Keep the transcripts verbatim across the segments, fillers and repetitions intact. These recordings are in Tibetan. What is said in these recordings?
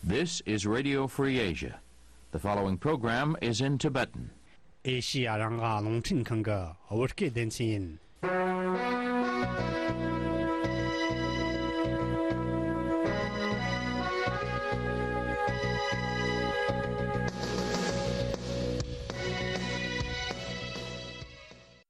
This is Radio Free Asia. The following program is in Tibetan. ཨེ་ཤི་ཡ་རང་དབང་རླུང་འཕྲིན་ཁང་གི་བོད་སྐད་སྡེ་ཚན་ཡིན།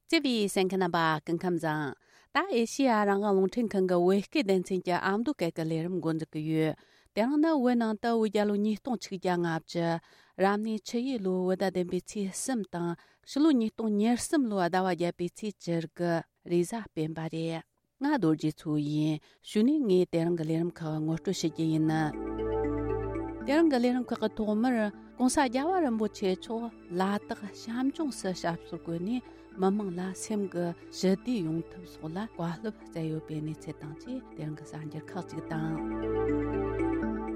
བརྩེ་བའི་གསན་མཁན་རྣམ་པ་སྐུ་ཁམས་བཟང་། ད་ཨེ་ཤི་ཡ་རང་དབང་རླུང་འཕྲིན་ཁང་གི་བོད་སྐད་སྡེ་ཚན་གྱི་ཨ་མདོ་སྐད་ཀྱི་ལས་རིམ་འགོ་འཛུགས་ཀྱི་ཡོད། དེ་རིང་ནི་བོད་ནང་དུ་བོད་རྒྱལ་ལོ་ཉིས་སྟོང་ཆིག་བརྒྱ་ལྔ་བཅུ། རབ་གནས་ཆུ་ཡོས་ལོའི་བོད་ཟླ་བདུན་པའི་ཚེས་གསུམ་དང་། ཕྱི་ལོ་ཉིས་སྟོང་ཉེར་གསུམ་ལོའི་ཟླ་བ་བརྒྱད་པའི་ཚེས་བཅུ་དགུ་རེས་གཟའ་སྤེན་པ་རེད། ང་རྡོ་རྗེ་མཚོ་ཡིན། གཞུག་ནས་ངས་དེ་རིང་གི་ལས་རིམ་ཁག་ངོ་སྤྲོད་ཞུ་རྒྱུ་ཡིན། དེ་རིང་གི་ལས་རིམ་ཁག་གི་ཐོག་མར་༸གོང་ས་༸རྒྱལ་བ་རིན་པོ་ཆེ་མཆོག་ལ་དྭགས་བྱམས་ལྗོངས་སུ་ཞབས་སོར་བཀོད་ནས་མི་མང་ལ་སེམས་ཀྱི་ཞི་བདེ་ཡོང་ཐབས་སོགས་ལ་བཀའ་སློབ་སྩལ་ཡོད་པའི་གནས་ཚུལ་དང་བཅས། དེ་རིང་གི་གསར་འགྱུར་ཁག་ཅིག་དང་།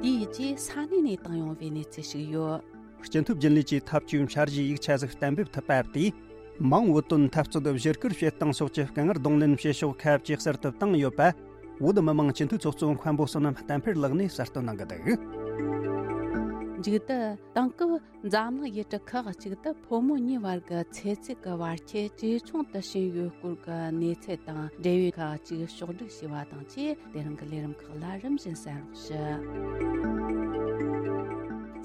དེའི་རྗེས་ས་གནས་ནས་བཏང་ཡོང་བའི་གནས་ཚུལ་ཞིག་ཡོད། སྤྱི་འཐུས་རྒྱུན་ལས་ཀྱི་ཐབས་ཇུས་འཆར་གཞིའི་ཡིག་ཆ་ཟིག་གཏན་འབེབས་ཐུབ་པ་དེས། མང་བོད་དོན་འཐབ་རྩོད་བཞུར་སྐུལ་བྱེད་སྟངས་སོགས་ཀྱི་དཀའ་ངལ་གདོང་ལེན་བྱེད་ཕྱོགས་ཁ་ཇེ་གསལ་དུ་བཏང་ཡོད་པ། བོད་མི་མང་སྤྱི་འཐུས་ཚོགས་གཙོ་མཁན་པོ་བསོད་ནམས་བསྟན་འཕེལ་ལགས་ནས་གསལ་སྟོན་གནང་གི་འདུག་མཇུག་ཏུ་དེང་སྐབས་འཛམ་གླིང་ཡུལ་གྲུ་ཁག་ཅིག་ཏུ་ཕོ་མོ་གཉིས་བར་གྱི་ཚེ་ཚད་ཀྱི་བར་ཁྱད་ཇེ་ཆུང་དུ་ཕྱིན་ཡོད་སྐོར་གྱི་གནས་ཚུལ་དང་འབྲེལ་བའི་ཁག་ཅིག་ཕྱོགས་བསྒྲིགས་བྱས་པ་དང་བཅས། དེ་རིང་གི་ལས་རིམ་ཁག་ལ་རིམ་བཞིན་གསན་རོགས་ཞུ།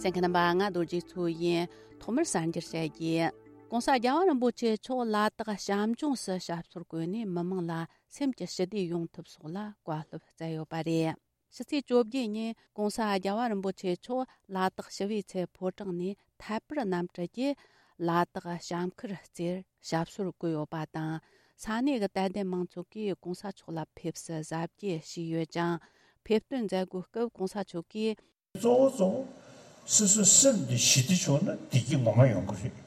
གསན་མཁན་རྣམ་པ། ང་རྡོ་རྗེ་མཚོ་ཡིན། ཐོག་མར་གསར་འགྱུར་བཤད་རྒྱུ།༸གོང་ས་༸རྒྱལ་བ་རིན་པོ་ཆེ་མཆོག་ལ་དྭགས་བྱམས་ལྗོངས་སུ་ཞབས་སོར་བཀོད་ནས་མི་མང་ལ་སེམས་ཀྱི་ཞི་བདེ་ཡོང་ཐབས་སོགས་ལ་བཀའ་སློབ་སྩལ་ཡོད་པ་རེད། ཕྱི་ཚེས་བཅོ་བརྒྱད་ཉིན་༸གོང་ས་༸རྒྱལ་བ་རིན་པོ་ཆེ་མཆོག་ལ་དྭགས་ཞི་བའི་ཚལ་ཕོ་བྲང་ནས་ཐད་པར་གནམ་གྲུ་གྱིས་ལ་དྭགས་བྱམས་ཁུལ་རྩེར་ཞབས་སོར་བཀོད་ཡོད་པ་དང་། ས་གནས་ཀྱི་དད་ལྡན་མང་ཚོགས་ཀྱིས་༸གོང་ས་མཆོག་ལ་ཕེབས་བསུ་གཟབ་རྒྱས་བྱས་ཡོད་ཅིང་། ཕེབས་སྟོན་མཛད་སྒོའི་སྐབས་༸གོང་ས་མཆོག་གིས། གཙོ་བོ་གཙོ་བོ། སོ་སོའི་སེམས་འདི་ཞི་བདེ་བྱུང་ན་བདེ་སྐྱིད་ངོ་མ་ཡོང་གི་རེད།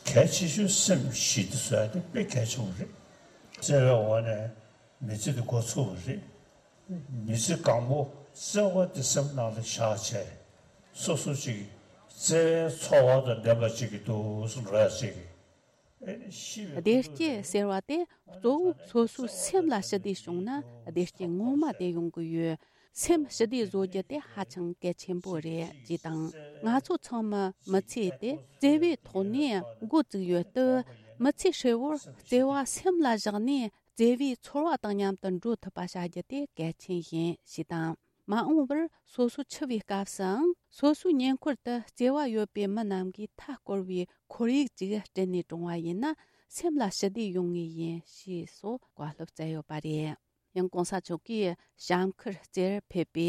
གལ་ཆེ་ཤོས་སེམས་ཞི་བདེ་བཟོ་ཡ་དེ་དཔེ་གལ་ཆེན་པོ་རེད། བརྩེ་བའི་འོག་ནས་མི་ཚེ་འདི་འགོ་ཚུགས་པ་རེད། མི་ཚེ་གང་པོ་བརྩེ་བ་དེ་སེམས་ནང་ལ་བཞག་བྱས། སོ་སོ་ཅིག་བརྩེ་བའི་ཚོར་བ་དང་ལྡན་པ་ཅིག་གི་འདུག་སེ་འགྲོ་ཡ་ཅིག་གི། བདེ་སྐྱིད་ཟེར་བ་དེ་གཙོ་བོ་སོ་སོའི་སེམས་ལ་ཞི་བདེ་བྱུང་ན་བདེ་སྐྱིད་ངོ་མ་དེ་ཡོང་གི་ཡོད། སེམས་ཞི་བདེ་བཟོ་རྒྱུ་དེ་ཧ་ཅང་གལ་ཆེན་པོ་རེད་ཅེས་དང་། ང་ཚོ་ཚང་མ་མི་ཚེ་དེ་བརྩེ་བའི་ཐོག་ནས་འགོ་བཙུགས་ཡོད་སྟབས། མི་ཚེ་ཧྲིལ་བོར་བརྩེ་བ་སེམས་ལ་བཞག་ནས་བརྩེ་བའི་ཚོར་བ་དང་མཉམ་དུ་འགྲོ་ཐུབ་པ་བྱ་རྒྱུ་དེ་གལ་ཆེན་ཡིན་ཞེས་དང་། མ་འོངས་པར་སོ་སོ་འཆི་བའི་སྐབས་སུའང་སོ་སོའི་ཉེ་འཁོར་དུ་བརྩེ་བ་ཡོད་པའི་མི་རྣམས་ཀྱིས་མཐའ་བསྐོར་བའི་ཁོར་ཡུག་ཅིག་སྐྲུན་ནས་བཀྲོངས་པ་ཡིན་ན་སེམས་ལ་ཞི་བདེ་ཡོང་ངེས་ཡིན་ཞེས་སོགས་བཀའ་སློབ་སྩལ་ཡོད་པ་རེད། ཡང་༸གོང་ས་མཆོག་གིས་བྱམས་ཁུལ་རྩེར་ཕེབས་པའི་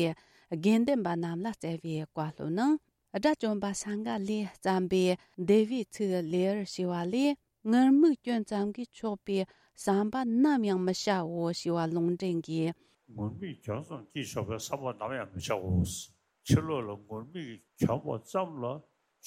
དགེ་འདུན་པ་རྣམས་ལ་སྩལ་བའི་བཀའ་སློབ་ནང་། དགྲ་བཅོམ་པ་སངྒ་ལས་བརྩམས་པའི་འདུལ་བའི་ཚིག་ལེའུར་ཞེས་པ་ལས། ངུར་སྨྲིག་སྐྱོན་ཙམ་གྱིས་ཆོག་པའི་བསམ་པ་ནམ་ཡང་མི་བྱའོ་ཞེས་པ་ལུང་འདྲེན་གྱིས། ངུར་སྨྲིག་སྐྱོན་ཙམ་གྱིས་ཆོག་པའི་བསམ་པ་ནམ་ཡང་མི་བྱའོ། ཕྱི་ལོགས་ལ་ངུར་སྨྲིག་གྱོན་པ་ཙམ་ལ་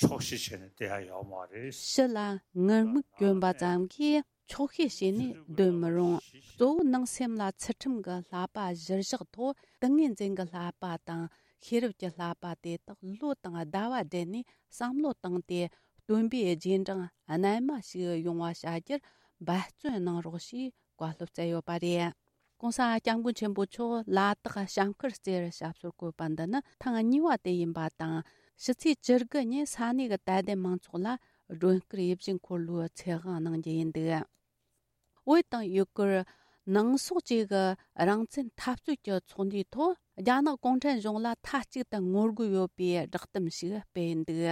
ཆོག་ཤེས་བྱས་ནས་བསྡད་ཡ་ཡོད་མ་རེད། ཕྱི་ལ་ངུར་སྨྲིག་གྱོན་པ་ཙམ་གྱིས་ཆོག་ཤེས་བྱས་ནས་སྡོད་མི་རུང་། གཙོ་བོ་ནང་སེམས་ལ་ཚུལ་ཁྲིམས་ཀྱི་བསླབ་པ་གཞིར་བཞག་ཐོག་ཏིང་ངེ་འཛིན་གྱི་བསླབ་པ་དང་ཤེས་རབ་ཀྱི་བསླབ་པ་དེ་དག་བློ་དང་ཟླ་བ་སྦྲེལ་ནས་བསམ་བློ་བཏང་སྟེ། སྟོན་པའི་རྗེས་འབྲང་རྣལ་མ་ཞིག་ཡོང་བ་བྱ་རྒྱུར་འབད་བརྩོན་གནང་རོགས་ཞེས་བཀའ་སློབ་སྩལ་ཡོད་པ་རེད།༸གོང་ས་༸སྐྱབས་མགོན་ཆེན་པོ་མཆོག་ལ་དྭགས་བྱམས་ཁུལ་རྩེར་ཞབས་སོར་བཀོད་པ་འདི་ནི་ཐེངས་གཉིས་པ་དེ་ཡིན་པ་དང་། ཕྱི་ཚེས་བཅུ་དགུ་ཉིན་ས་གནས་ཀྱི་དད་ལྡན་མང་ཚོགས་ལ་སྒྲོན་སྐུར་ཡིད་བཞིན་འཁོར་ལོའི་ཚེ་དབང་གནང་རྒྱུ་ཡིན་འདུག་བོད་དང་ཡུ་གུར་ནང་སོག་བཅས་ཀྱི་རང་བཙན་འཐབ་རྩོད་ཀྱི་ཚོགས་འདུའི་ཐོག་རྒྱ་ནག་གུང་ཁྲན་གཞུང་ལ་མཐའ་གཅིག་ཏུ་ངོ་རྒོལ་ཡོད་པའི་བསྒྲགས་གཏམ་ཞིག་སྤེལ་འདུག་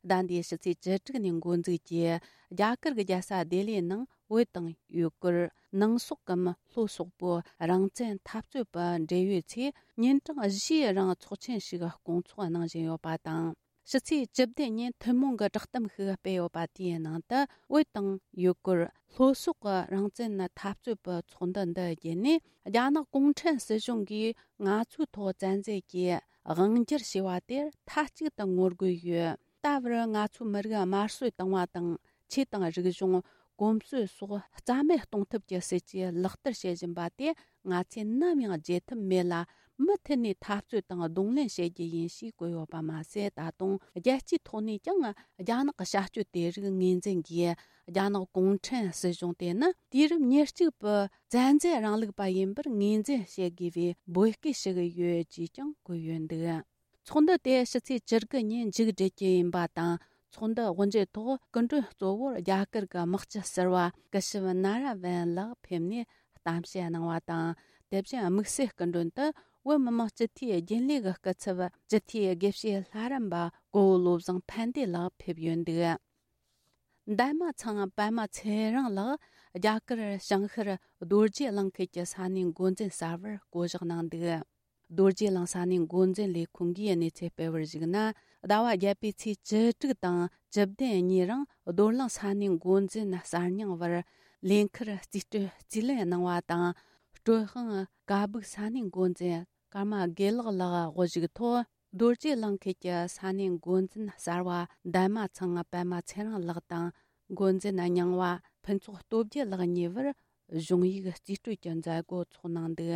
ཟླ་འདིའི་ཕྱི་ཚེས་བཅུ་དྲུག་ཉིན་འགོ་འཛུགས་ཀྱིས་རྒྱ་གར་གྱི་རྒྱལ་ས་ལྡི་ལིའི་ནང་བོད་དང་ཡུ་གུར་ནང་སོག་གམ་ལྷོ་སོག་པོའི་རང་བཙན་འཐབ་རྩོད་པ་འབྲེལ་ཡོད་ཚོས་ཉིན་གྲངས་བཞིའི་རིང་ཚོགས་ཆེན་ཞིག་སྐོང་ཚོགས་གནང་བཞིན་ཡོད་པ་དང་། ཕྱི་ཚེས་བཅུ་བདུན་ཉིན་ཐུན་མོང་གི་བསྒྲགས་གཏམ་ཞིག་སྤེལ་ཡོད་པ་དེའི་ནང་དུ། བོད་དང་ཡུ་གུར་ལྷོ་སོག་གི་རང་བཙན་འཐབ་རྩོད་པའི་ཚོགས་འདུ་འདི་བརྒྱུད་ནས། རྒྱ་ནག་གུང་ཁྲན་སྲིད་གཞུང་གིས་ང་ཚོའི་ཐོག་བཙན་འཛུལ་གྱིས་དབང་སྒྱུར་བྱས་པ་དེར་མཐའ་གཅིག་ཏུ་ངོ་རྒོལ་ཡོད། ད་བར་ང་ཚོའི་མི་རིགས་དམར་གསོད་བཏང་བ་དང་། ཆོས་དང་རིག་གཞུང་། གོམས་སྲོལ་སོགས་རྩ་མེད་གཏོང་ཐབས་ཀྱི་སྲིད་ཇུས་ལག་བསྟར་བྱེད་བཞིན་པ་དེ་ང་ཚོས་ནམ་ཡང་བརྗེད་ཐབས་མེད་ལ། མུ་མཐུད་ནས་འཐབ་རྩོད་དང་གདོང་ལེན་བྱེད་རྒྱུ་ཡིན་ཞེས་བཀོད་ཡོད་པ་མ་ཟད། ད་དུང་རྒྱལ་སྤྱིའི་ཐོག་ནས་ཀྱང་རྒྱ་ནག་གི་བྱ་སྤྱོད་དེ་རིགས་ངོས་འཛིན་གྱིས། རྒྱ་ནག་གུང་ཁྲན་སྲིད་གཞུང་དེ་ནི་དུས་རབས་ཉེར་གཅིག་པའི་བཙན་འཛུལ་རིང་ལུགས་པ་ཡིན་པར་ངོས་འཛིན་བྱེད་དགོས་པའི་འབོད་སྐུལ་ཞུ་གི་ཡོད་ཅེས་ཀྱང་བཀོད་ཡོད་འདུག་ཚོགས་འདུ་དེ་ཕྱི་ཚེས་བཅུ་དགུ་ཉིན་མཇུག་སྒྲིལ་རྒྱུ་ཡིན་པ་དང་། ཚོགས་འདུ་དབུ་འབྱེད་ཐོག་སྐུ་མགྲོན་གཙོ་བོར་རྒྱ་གར་གྱི་དམག་སྤྱི་ཟུར་པ་སྐུ་ཞབས་ན་ར་ཝན་ལགས་ཕེབས་ནས་གཏམ་བཤད་གནང་བ་དང་། དེ་བཞིན་དམིགས་བསལ་སྐུ་མགྲོན་དུ་བོད་མི་མང་སྤྱི་འཐུས་རྒྱུན་ལས་ཀྱི་སྐུ་ཚབ་སྤྱི་འཐུས་དགེ་བཤེས་ལྷ་རམས་པ་གོ་བོ་བློ་བཟང་ཕན་བདེ་ལགས་ཕེབས་ཡོད་འདུག་འདན་མ་ཚང་པད་མ་ཚེ་རིང་ལགས་རྒྱ་གར་བྱང་ཤར་རྡོ་རྗེ་གླིང་ཁུལ་གྱི་ས་གནས་འགོ་འཛིན་གསར་པར་བསྐོ་གཞག་གནང་འདུག་རྡོ་རྗེ་གླིང་ས་གནས་འགོ་འཛིན་ལས་ཁུངས་ཀྱིས་གནས་ཚུལ་སྤེལ་བར་གཞིགས་ན། ཟླ་བ་བརྒྱད་པའི་ཚེས་བཅུ་དྲུག་དང་བཅུ་བདུན་གཉིས་རིང་རྡོར་གླིང་ས་གནས་འགོ་འཛིན་གསར་རྙིང་བར་ལས་འཁུར་རྩིས་སྤྲོད་རྩིས་ལེན་གནང་བ་དང་། སྤྲོད་དབང་ཀ་སྦུག་ས་གནས་འགོ་འཛིན་ཀརྨ་དགེ་ལེགས་ལགས་དབུ་བཞུགས་ཐོག་རྡོ་རྗེ་གླིང་ཁུལ་གྱི་ས་གནས་འགོ་འཛིན་གསར་པ་འདན་མ་ཚང་པད་མ་ཚེ་རིང་ལགས་དང་། འགོ་འཛིན་རྙིང་བ་ཕུན་ཚོགས་སྟོབས་རྒྱལ་ལགས་གཉིས་བར་གཞུང་ཡིག་རྩིས་སྤྲོད་ཀྱི་མཛད་སྒོ་འཚོགས་གནང་འདུག་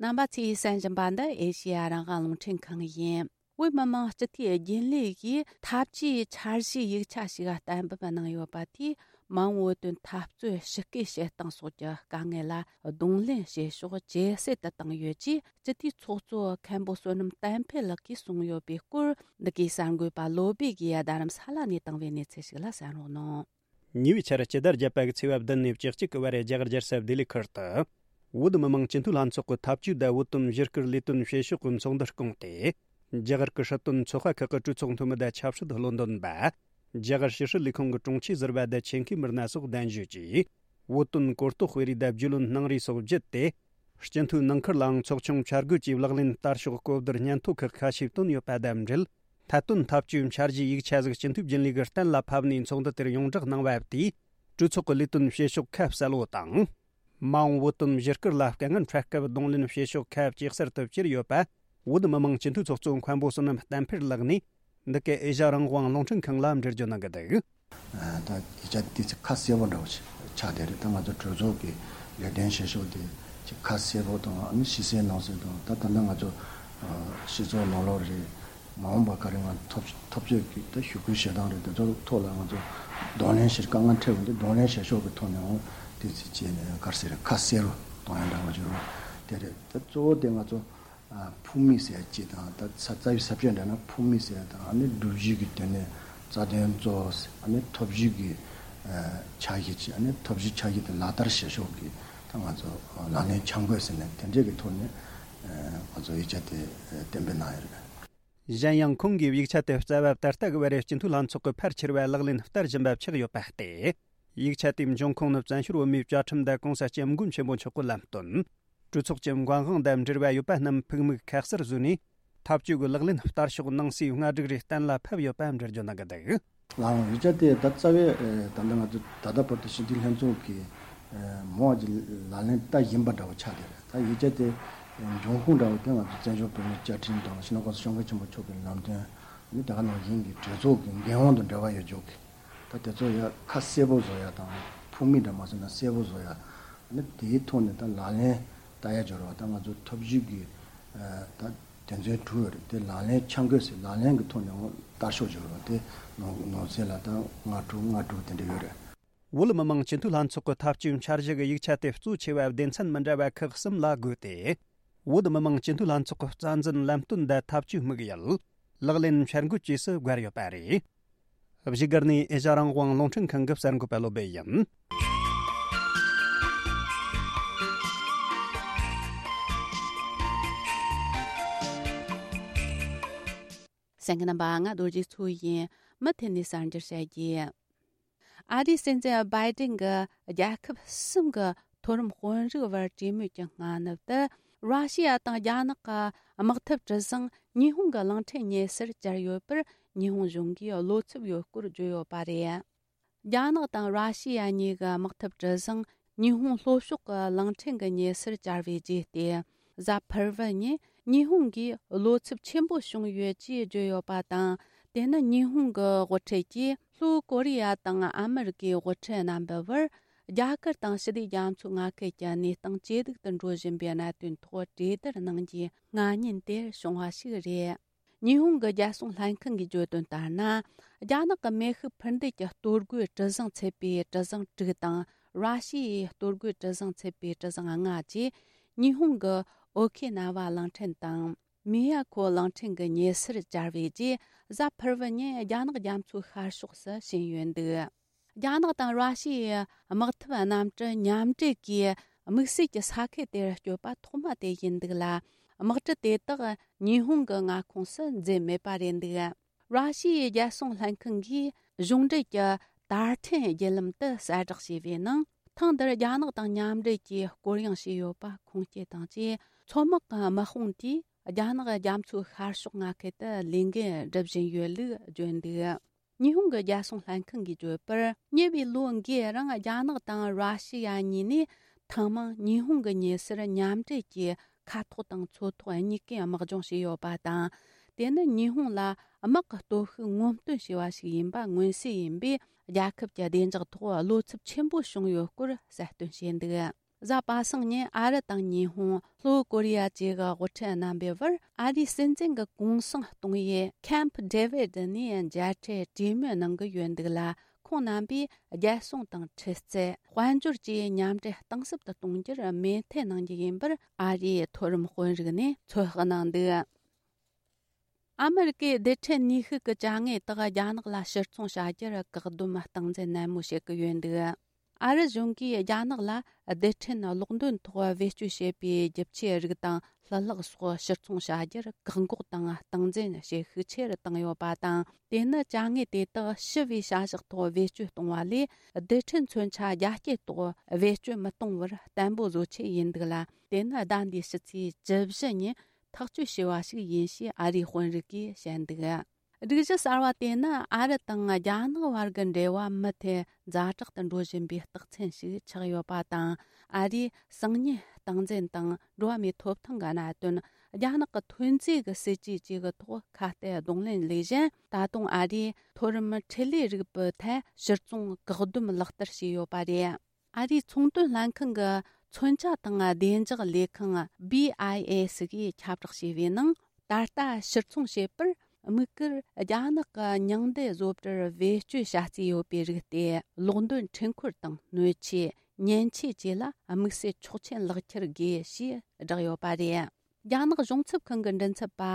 རྣམ་པ་ཚོས་གསན་བཞིན་པ་འདི་ཨེ་ཤེ་ཡ་རང་དབང་རླུང་འཕྲིན་ཁང་ཡིན། བོད་མི་མང་སྤྱི་འཐུས་རྒྱུན་ལས་ཀྱིས་འཐབ་ཇུས་འཆར་གཞིའི་ཡིག་ཆ་ཞིག་གཏན་འབེབས་གནང་ཡོད་པ་དེས། མ་འོངས་བོད་དོན་འཐབ་རྩོད་ཞི་རྒོལ་བྱེད་སྟངས་སོགས་ཀྱི་དཀའ་ངལ་ལ་གདོང་ལེན་བྱེད་ཕྱོགས་ཇེ་གསལ་དུ་བཏང་ཡོད་ཅེས་སྤྱི་འཐུས་ཚོགས་གཙོ་མཁན་པོ་བསོད་ནམས་བསྟན་འཕེལ་ལགས་ཀྱིས་གསུངས་ཡོད་པའི་སྐོར། འདི་གའི་གསར་འགོད་པ་བློ་བྷེ་གིས་རྡ་རམ་ས་ལ་ནས་བཏང་བའི་གནས་ཚུལ་ཞིག་ལ་གསན་རོགས་གནང་། ཉེ་བའི་ཆར་སྤྱི་ཟླ་བརྒྱད་པ་གི་ཚེས་པ་བདུན་ནས་བཅུ་གཅིག་གི་བར་རྒྱ་གར་རྒྱལ་ས་ལྡི་ལི་ཁུལ་དུ། བོད་མི་མང་སྤྱི་འཐུས་ལྷན་ཚོགས་ཀྱི་འཐབ་ཇུས་དང་བོད་དོན་བཞི་སྐུལ་ལས་དོན་བྱེད་ཕྱོགས་ཀྱི་ཚོགས་འདུ་བསྐོངས་ཏེ། རྒྱ་གར་གྱི་སྲིད་དོན་ཚོགས་པ་ཁག་གི་གྲོས་ཚོགས་འཐུས་མི་དང་ཆབ་སྲིད་བློན་འདོན་པ། རྒྱ་གར་ཕྱི་སྲིད་ལས་ཁུངས་ཀྱི་དྲུང་ཆེ་ཟུར་པ་དང་ཆེད་མཁས་མི་སྣ་སོགས་གདན་ཞུས་ཀྱིས། བོད་དོན་གོ་རྟོགས་སྤེལ་རེས་དང་རྒྱུས་ལོན་གནང་རེས་སོགས་བརྒྱུད་དེ། སྤྱི་འཐུས་ནང་ཁུལ་ལའང་ཚོགས་ཆུང་བཅར་དགོས་ཀྱི་ལག་ལེན་བསྟར་ཕྱོགས་གོ་བསྡུར་སྙན་ཐོ་ཁག་ཁ་ཤས་བཏོན་ཡོད་པ་དང་འབྲེལ། ཐད་གཏོང་འཐབ་ཇུས་འཆར་གཞིའི་ཡིག་ཆ་ཟིག་སྤྱི་འཐུས་རྒྱུན་ལས་ཀྱིས་གཏན་ལ་ཕབ་ནས་ཚོགས་འདུ་དེར་ཡོངས་བསྒྲགས་གནང་བ་དེས། གྲོས་ཚོགས་ཀྱི་ལས་དོན་བྱེད་ཕྱོགས་ཁ་གསལ་བོ་དང་། མ་འོངས་བོད་དོན་བཞི་སྐུལ་ལ་དཀའ་ངལ་འཕྲད་སྐབས་གདོང་ལེན་བྱེད་ཕྱོགས་ཁ་ཇེ་གསལ་དུ་གྱུར་ཡོད་པ། བོད་མི་མང་སྤྱི་འཐུས་ཚོགས་གཙོ་མཁན་པོ་བསོད་ནམས་བསྟན་འཕེལ་ལགས་ནས། འདི་གའི་ཨེ་ཤ་རང་དབང་རླུང་འཕྲིན་ཁང་ལ་འགྲེལ་བརྗོད་གནང་གི་འདུག་ད་ཡིག་ཆ་དེ་ཚོ་ཁ་གསལ་པོ་འདྲ་བོ་ཞིག་ཆགས་བསྡད་རེད། ད་ང་ཚོ་གྲོས་ཚོགས་ཀྱི་ལས་དོན་བྱེད་ཕྱོགས་དེ་ཅིག་ཁ་གསལ་པོ་དང་ཨ་ནི་ཕྱི་གསལ་ནང་གསལ་དང་། ད་ད་ལྟ་ང་ཚོ་སྤྱི་ཚོགས་ནང་ལོགས་རེད། མ་འོངས་པ་ག་རེ་ང་འཐབ་འཐབ་རྩོད་ཀྱི་ད་ཞུ་སྐུལ་བྱེད་སྟངས་རེད། དེ་ཚོ་ཐོག་ལ་ང་ཚོ་གདོང་ལེན་བྱེད་དཀའ་ངལ་འཕྲད་པ་འདི་གདོང་ལེན་བྱེད་ཕྱོགས་ཀྱི་ཐོག་ནས་འོང་དེ་ཚོ་བྱས་ནས་ག་རེ་ཟེར་ཁ་གསལ་པོ་གཏོང་ཡ་འདྲ་བོ་བྱུང་རོགས་དེ་རེད། ད་གཙོ་བོ་དེ་ང་ཚོ་ཨ་ཕུགས་དམིགས་ཟེར་ཡ་གཅིག་དང་། ད་ས་རྩ་བའི་ས་བཅད་འདྲ་ན་ཕུགས་དམིགས་ཟེར་ཡ་དང་། ཨ་ནི་སྒྲུབ་བྱེད་ཀྱི་དོན་ནས་རྩ་དོན་གཙོ་བོ་ཟེར། ཨ་ནི་ཐབས་ཇུས་ཀྱི་ཨ་འཆར་གཞི་ཅིག་ཨ་ནི་ཐབས་ཇུས་འཆར་གཞི་དེ་ལག་བསྟར་བྱེད་ཕྱོགས་ཀྱི་ད་ང་ཚོ་ལག་ལེན་འཆར་འགོད་ཟེར་ནས་དེ་འདྲས་ཀྱི་ཐོག་ནས་ཨ་ང་ཚོ་ཡིག་ཆ་དེ་གཏན་འབེབས་གནང་ཡོད་རེད། གཞན་ཡང་ཁོང་གིས་ཡིག་ཆ་དེ་རྩ་བ་ད་ལྟ་གི་བར་སྤྱི་འཐུས་ལྷན་ཚོགས་ཀྱི་ཕལ་ཆེར་བ་ལག་ལེན་བསྟར་བཞིན་པ་ཆགས་ཡོད་པ་སྟེ། ཡིག་ཆ་དེའི་འབྱུང་ཁུངས་ནི་བཙན་བྱོལ་བོད་མིའི་བཅའ་ཁྲིམས་དང་གོང་ས་སྐྱབས་མགོན་ཆེན་པོ་མཆོག་གི་ལམ་སྟོན། གྲོས་ཚོགས་ཀྱི་འགན་དབང་དང་འབྲེལ་བ་ཡོད་པ་རྣམས་ཕུགས་དམིགས་ཁ་གསལ་བཟོས་ནས། འཐབ་ཇུས་ཀྱི་ལག་ལེན་བསྟར་ཕྱོགས་ནང་གསེས་སྔ་སྒྲིག་རེ་གཏན་ལ་ཕབ་ཡོད་པ་འགྲེལ་བརྗོད་གནང་གི་འདུག་ལའང་ཡིག་ཆ་དེ་ད་རྩ་བའི་ད་ལྟ་ང་ཚོ་ད་ལྟ་བར་དུ་སྤྱི་འཐུས་ལྷན་ཚོགས་ཀྱིས་མོ་ཨ་ཅི་ལག་ལེན་བསྟར་བཞིན་པ་འདྲ་བོ་ཆགས་བསྡད་རེད། ད་ཡིག་ཆ་དེ་འབྱུང་ཁུངས་འདྲ་བོ་དེ་ང་ཚོ་བཙན་བྱོལ་བོད་མིའི་བཅའ་ཁྲིམས་དང་སྤྱི་ནོར་གོང་ས་སྐྱབས་མགོན་ཆེན་པོ་མཆོག་གི་ལམ་སྟོན། ནི་དེ་ག་ནང་བཞིན་གྱི་གྲོས་ཚོགས་ཀྱི་འགན་དབང་དང་འབྲེལ་བ་ཡོད་ཕྱོགས་ཀྱི་ད་དེ་ཚོ་ཡ་ཁ་གསལ་པོ་བཟོ་ཡ་དང་ཕུགས་དམིགས་འདྲ་མ་བཟོས་ན་གསལ་པོ་བཟོ་ཡ། ནི་དེའི་ཐོག་ནས་ད་ལག་ལེན་བསྟར་ཡ་སྦྱོར་བ་ད་ང་ཚོ་ཐབས་ཇུས་ཀྱི་ད་དོན་ཚན་དྲུག་ཡོད་རེད། དེ་ལག་ལེན་འཆར་འགོད་ཟེར་ལག་ལེན་གྱི་ཐོག་ནས་འོང་བསྟར་ཕྱོགས་སྦྱོར་བ་དེ་ནང་ནང་གསེས་ལ་ད་ལྔ་དྲུག་ལྔ་དྲུག་དེ་འདྲ་ཡོད་རེད། བོད་མི་མང་སྤྱི་འཐུས་ལྷན་ཚོགས་ཀྱི་ཐབས་ཇུས་འཆར་གཞི་གི་ཡིག་ཆ་དེ་གཙོ་ཆེ་བ་སྡེ་ཚན་མི་འདྲ་བ་ཁག་གསུམ་ལ་བགོས་ཏེ། བོད་མི་མང་སྤྱི་འཐུས་ལྷན་ཚོགས་ཀྱི་རྩ་འཛིན་ལམ་སྟོན་དང་ཐབས་ཇུས་དམིགས་ཡུལ། ལག་ལེན་འཆར་འགོད་བཅས་སུ་བགོས་ཡོད་པ་རེད། བཞུགས་སྒར་ནས་ཨེ་ཤ་རང་དབང་རླུང་འཕྲིན་ཁང་གི་གསར་འགོད་པ་བློ་བྷེ་ཡིན། གསན་མཁན་རྣམ་པ། ང་རྡོ་རྗེ་མཚོ་ཡིན། མུ་མཐུད་ནས་གསར་འགྱུར་བཤད་རྒྱུ། ཨ་རིའི་སྲིད་འཛིན་བྷའི་ཏིན་གྱིས་རྒྱལ་ཁབ་གསུམ་གྱི་མཐོ་རིམ་དཔོན་རིགས་བར་གྲོས་མོལ་གྱི་སྔ་ནུབ་ཏུ། ར་ཤི་ཡ་དང་རྒྱ་ནག་གི་དམག་འཐབ་གྲུ་གཟིངས་ཉི་ཧོང་གི་གླིང་ཕྲན་ཉེ་སར་བཅར་ཡོད་པར་ཉི་ཧོང་གཞུང་གིས་བློ་འཚབ་ཡོད་སྐོར་བརྗོད་ཡོད་པ་རེད། རྒྱ་ནག་དང་ར་ཤི་ཡ་གཉིས་ཀྱི་དམག་འཐབ་གྲུ་གཟིངས་ཉི་ཧོང་ལྷོ་ཕྱོགས་ཀྱི་གླིང་ཕྲན་གྱི་ཉེ་སར་བཅར་བའི་རྗེས་ཏེ། གཟའ་ཕུར་བུ་ཉིན་ཉི་ཧོང་གིས་བློ་འཚབ་ཆེན་པོ་བྱུང་ཡོད་ཅེས་བརྗོད་ཡོད་པ་དང་། དེ་ནི་ཉི་ཧོང་གི་དབུ་ཁྲིད་ཀྱིས་ལྷོ་ཀོ་རི་ཡ་དང་ཨ་མི་རི་ཀའི་དབུ་ཁྲིད་རྣམ་པའི་བར་རྒྱ་གར་དང་ཞི་བདེ་རྒྱ་མཚོའི་མངའ་ཁུལ་གྱི་གནས་སྟངས་ཇེ་སྡུག་ཏུ་འགྲོ་བཞིན་པའི་གནད་དོན་ཐོག་གྲོས་བསྡུར་གནང་རྒྱུའི་མངགས་ཉེན་དེ་བྱུང་བ་ཞིག་རེད། ཉི་ཧོང་གི་རྒྱལ་སྲུང་ལྷན་ཁང་གིས་བརྗོད་དོན་ལྟར་ན། རྒྱ་ནག་གི་མེ་ཤུགས་འཕུར་མདེལ་གྱི་གཏོར་རྒོལ་གྲུ་གཟིངས་ཚུད་པའི་གྲུ་གཟིངས་དྲུག་དང་ ར་ཤི་ཡའི་གཏོར་རྒོལ་གྲུ་གཟིངས་ཚུད་པའི་གྲུ་གཟིངས་ལྔ་བཅས་ཉི་ཧོང་གི་ཨོ་ཁེ་ན་ཝ་གླིང་ཕྲན་དང་། མི་ཡ་ཁོ་གླིང་ཕྲན་གྱི་ཉེ་སར་གྱར་བའི་རྗེས། གཟའ་ཕུར་བུ་ཉིན་རྒྱ་ནག་རྒྱ་མཚོའི་ཤར་ཕྱོགས་སུ་ཕྱིན་ཡོད་འདུག་རྒྱ་ནག་དང་ར་ཤི་ཡའི་དམག་འཐབ་གནམ་གྲུ་མཉམ་འབྲེལ་གྱིས་དམིགས་བསལ་གྱི་ས་ཁུལ་དེར་བསྐྱོད་པ་ཐོག་མ་དེ་ཡིན་འདུག་ལ། དམག་གྲུ་དེ་དག་ཉི་ཧོང་གི་མངའ་ཁོངས་སུ་འཛུལ་མེད་པ་རེད་འདུག་ར་ཤི་ཡའི་རྒྱལ་སྲུང་ལྷན་ཁང་གིས་གཞུང་འབྲེལ་གྱི་དར་ཕྲན་བརྒྱུད་ལམ་དུ་གསལ་བསྒྲགས་བྱས་པའི་ནང་། ཐེངས་འདིར་རྒྱ་ནག་དང་མཉམ་འབྲེལ་གྱིས་སྐོར་གཡེང་བྱས་ཡོད་པ་ཁུངས་སྐྱེལ་དང་བཅས། མཚོ་དམག་གི་དམག་དཔུང་དེས་རྒྱ་ནག་རྒྱ་མཚོའི་ཤར་ཕྱོགས་མངའ་ཁུལ་དུ་ལས་འགུལ་སྒྲུབ་བཞིན་ཡོད་ལུགས་བརྗོད་འདུག་ཉི་ཧོང་གི་རྒྱལ་སྲུང་ལྷན་ཁང་གིས་བརྗོད་པར། ཉེ་བའི་ལོ་འགའི་རིང་རྒྱ་ནག་དང་ར་ཤི་ཡ་གཉིས་ནས་ཐེངས་མང་ཉི་ཧོང་གི་ཉེ་སར་མཉམ་འབྲེལ་གྱིས་མཁའ་ཐོག་དང་མཚོ་ཐོག་གཉིས་ཀའི་དམག་སྦྱོང་བྱས་ཡོད་པ་དང་། དེ་ནི་ཉི་ཧོང་ལ་དམག་གི་སྟོབས་ཤུགས་ངོམ་སྟོན་བྱས་པ་ཞིག་ཡིན་པ་མངོན་གསལ་ཡིན་པས། རྒྱལ་ཁབ་ཀྱི་བདེ་འཇགས་ཐོག་བློ་འཚབ་ཆེན་པོ་བྱུང་ཡོད་སྐོར་གསལ་སྟོན་བྱས་འདུག་གཟའ་པ་སངས་ཉིན་ཨ་རི་དང་ཉི་ཧོང་། ལྷོ་ཀོ་རི་ཡ་བཅས་ཀྱི་དབུ་ཁྲིད་རྣམ་པའི་བར་ཨ་རིའི་སྲིད་འཛིན་གྱི་གུང་སེང་གཏོང་ཡུལ་ཁེམ་ཕ་ཌེ་ཝིད་ནས་མཇལ་འཕྲད་གྲོས་མོལ་གནང་གི་ཡོད་འདུག་ལ། ཁོང་རྣམ་པས་རྒྱལ་སྲུང་དང་ཁྲི་རྩད། དཔལ་འབྱོར་བཅས་མཉམ་འབྲེལ་གཏིང་ཟབ་ཏུ་གཏོང་རྒྱུར་མོས་མཐུན་གནང་རྒྱུ་ཡིན་པར་ཨ་རིའི་མཐོ་རིམ་དཔོན་རིགས་ནས་ཚོད་དཔག་གནང་འདུག་ཨ་མི་རི་ཀའི་རྡུལ་ཕྲན་ནུས་ཤུགས་ཀྱི་བྱ་དངོས་དག་རྒྱ་ནག་ལ་ཕྱིར་ཚོང་བྱ་རྒྱུར་བཀག་སྡོམ་སྟངས་འཛིན་ནན་མོ་བྱེད་ཀྱི་ཡོད་འདུག་ཨ་རི་གཞུང་གིས་རྒྱ་ནག་ལ་རྡུལ་ཕྲན་གློག་འདོན་ཐོག་བེད་སྤྱོད་བྱེད་པའི་རྒྱུ་ཆའི་རིགས་དང་ལྷུ་ལག་སོགས་ཕྱིར་ཚོང་བྱ་རྒྱུར་བཀག་འགོག་དང་སྟངས་འཛིན་བྱེད་ཤུགས་ཆེ་རུ་བཏང་ཡོད་པ་དང་། དེ་ནི་བྱ་དངོས་དེ་དག་ཞི་བའི་བྱ་གཞག་ཐོག་བེད་སྤྱོད་གཏོང་བ་ལས། རྡུལ་ཕྲན་མཚོན་ཆ་རྒྱ་སྐྱེད་ཐོག་བེད་སྤྱོད་མི་གཏོང་བར་བརྟན་པོ་བཟོ་ཆེད་ཡིན་འདུག་ལ། དེ་ནི་ཟླ་འདིའི་ཕྱི་ཚེས་བཅུ་བཞི་ཉིན་ཐག་གཅོད་བྱས་པ་ཞིག་ཡིན་ཞེས་ཨ་རིའི་དཔོན་རིགས་ཀྱིས་བཤད་འདུག་སྒྲིག་གཞི་གསར་བ་དེ་ནི་ཨ་རི་དང་རྒྱ་ནག་བར་གྱི་འབྲེལ་བ་མུ་མཐུད་ཛ་དྲག་ཏུ་འགྲོ་བཞིན་པའི་རྟགས་མཚན་ཞིག་ཆགས་ཡོད་པ་དང་། ཨ་རིས་སང་ཉིན་སྟངས་འཛིན་དང་འགྲོ་བ་མིའི་ཐོབ་ཐང་གི་གནད་དོན། རྒྱ་ནག་གི་ཐོན་རྫས་ཀྱི་སྲིད་ཇུས་བཅས་ཀྱི་ཐོག་ཁ་གཏད་གདོང་ལེན་ལས་གཞན། ད་དུང་ཨ་རིས་མཐོ་རིམ་འཕྲིན་ལས་རིག་པའི་ཐད་ཕྱིར་ཚོང་བཀག་སྡོམ་ལག་བསྟར་བྱས་ཡོད་པ་རེད། ཨ་རིའི་ཚོང་དོན་ལྷན་ཁང་གི་མཚོན་ཆ་དང་བདེ་འཇགས་ལས་ཁང་། བྷི་ཨའི་ཨེ་སི་གིས་ཁྱབ་བསྒྲགས་བྱས་པའི་ནང་། ད་ལྟ་ཕྱིར་ཚོང་བྱེད་པར་དམིགས་བཀར་རྒྱ་ནག་གི་མྱང་འདས་བཟོ་གྲྭར་བེད་སྤྱོད་བྱ་རྩིས་ཡོད་པའི་རིགས་ཏེ། གློག་འདོན་འཕྲུལ་འཁོར་དང་སྣོད་ཆས། མཉེན་ཆས་བཅས་ལ་དམིགས་བསལ་ཆོག་མཆན་ལག་ཁྱེར་དགོས་ཞེས་བསྒྲགས་ཡོད་པ་རེད། རྒྱ་ནག་གཞུང་ཚབ་ཁང་གི་མགྲིན་ཚབ་པ་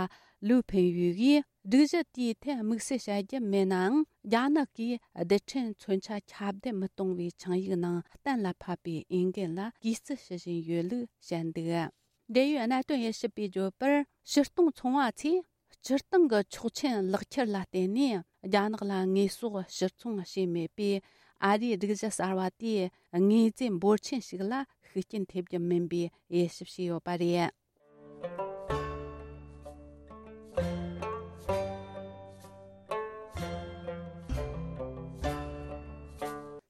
ལུའུ་ཕིན་ཡུས་ཀྱིས། སྒྲིག་གཞི་དེའི་ཐད་དམིགས་བསལ་བྱ་རྒྱུ་མེད་ནའང་། རྒྱ་ནག་གིས་རྡུལ་ཕྲན་མཚོན་ཆ་ཁྱབ་གདལ་མི་གཏོང་བའི་ཆིངས་ཡིག་ནང་གཏན་ལ་ཕབ་པའི་འོས་འགན་ལ་གུས་བརྩི་ཞུ་བཞིན་ཡོད་ལུགས་བཤད་འདུག་འབྲེལ་ཡོད་གནད་དོན་དབྱེ་ཞིབ་པས་བརྗོད་པར། ཕྱིར་གཏོང་ཚོང་བ་ཚོས་སྤྱིར་བཏང་གི་ཆོག་མཆན་ལག་ཁྱེར་ལ་བརྟེན་ནས་རྒྱ་ནག་ལ་དངོས་ཟོག་ཕྱིར་ཚོང་བྱས་མེད་པས། ཨ་རིའི་སྒྲིག་གཞི་གསར་བ་དེས་དངོས་རྫས་འབོར་ཆེན་ཞིག་ལ་ཤུགས་རྐྱེན་ཐེབས་རྒྱུ་མིན་པའི་དབྱེ་ཞིབ་བྱས་ཡོད་པ་རེད།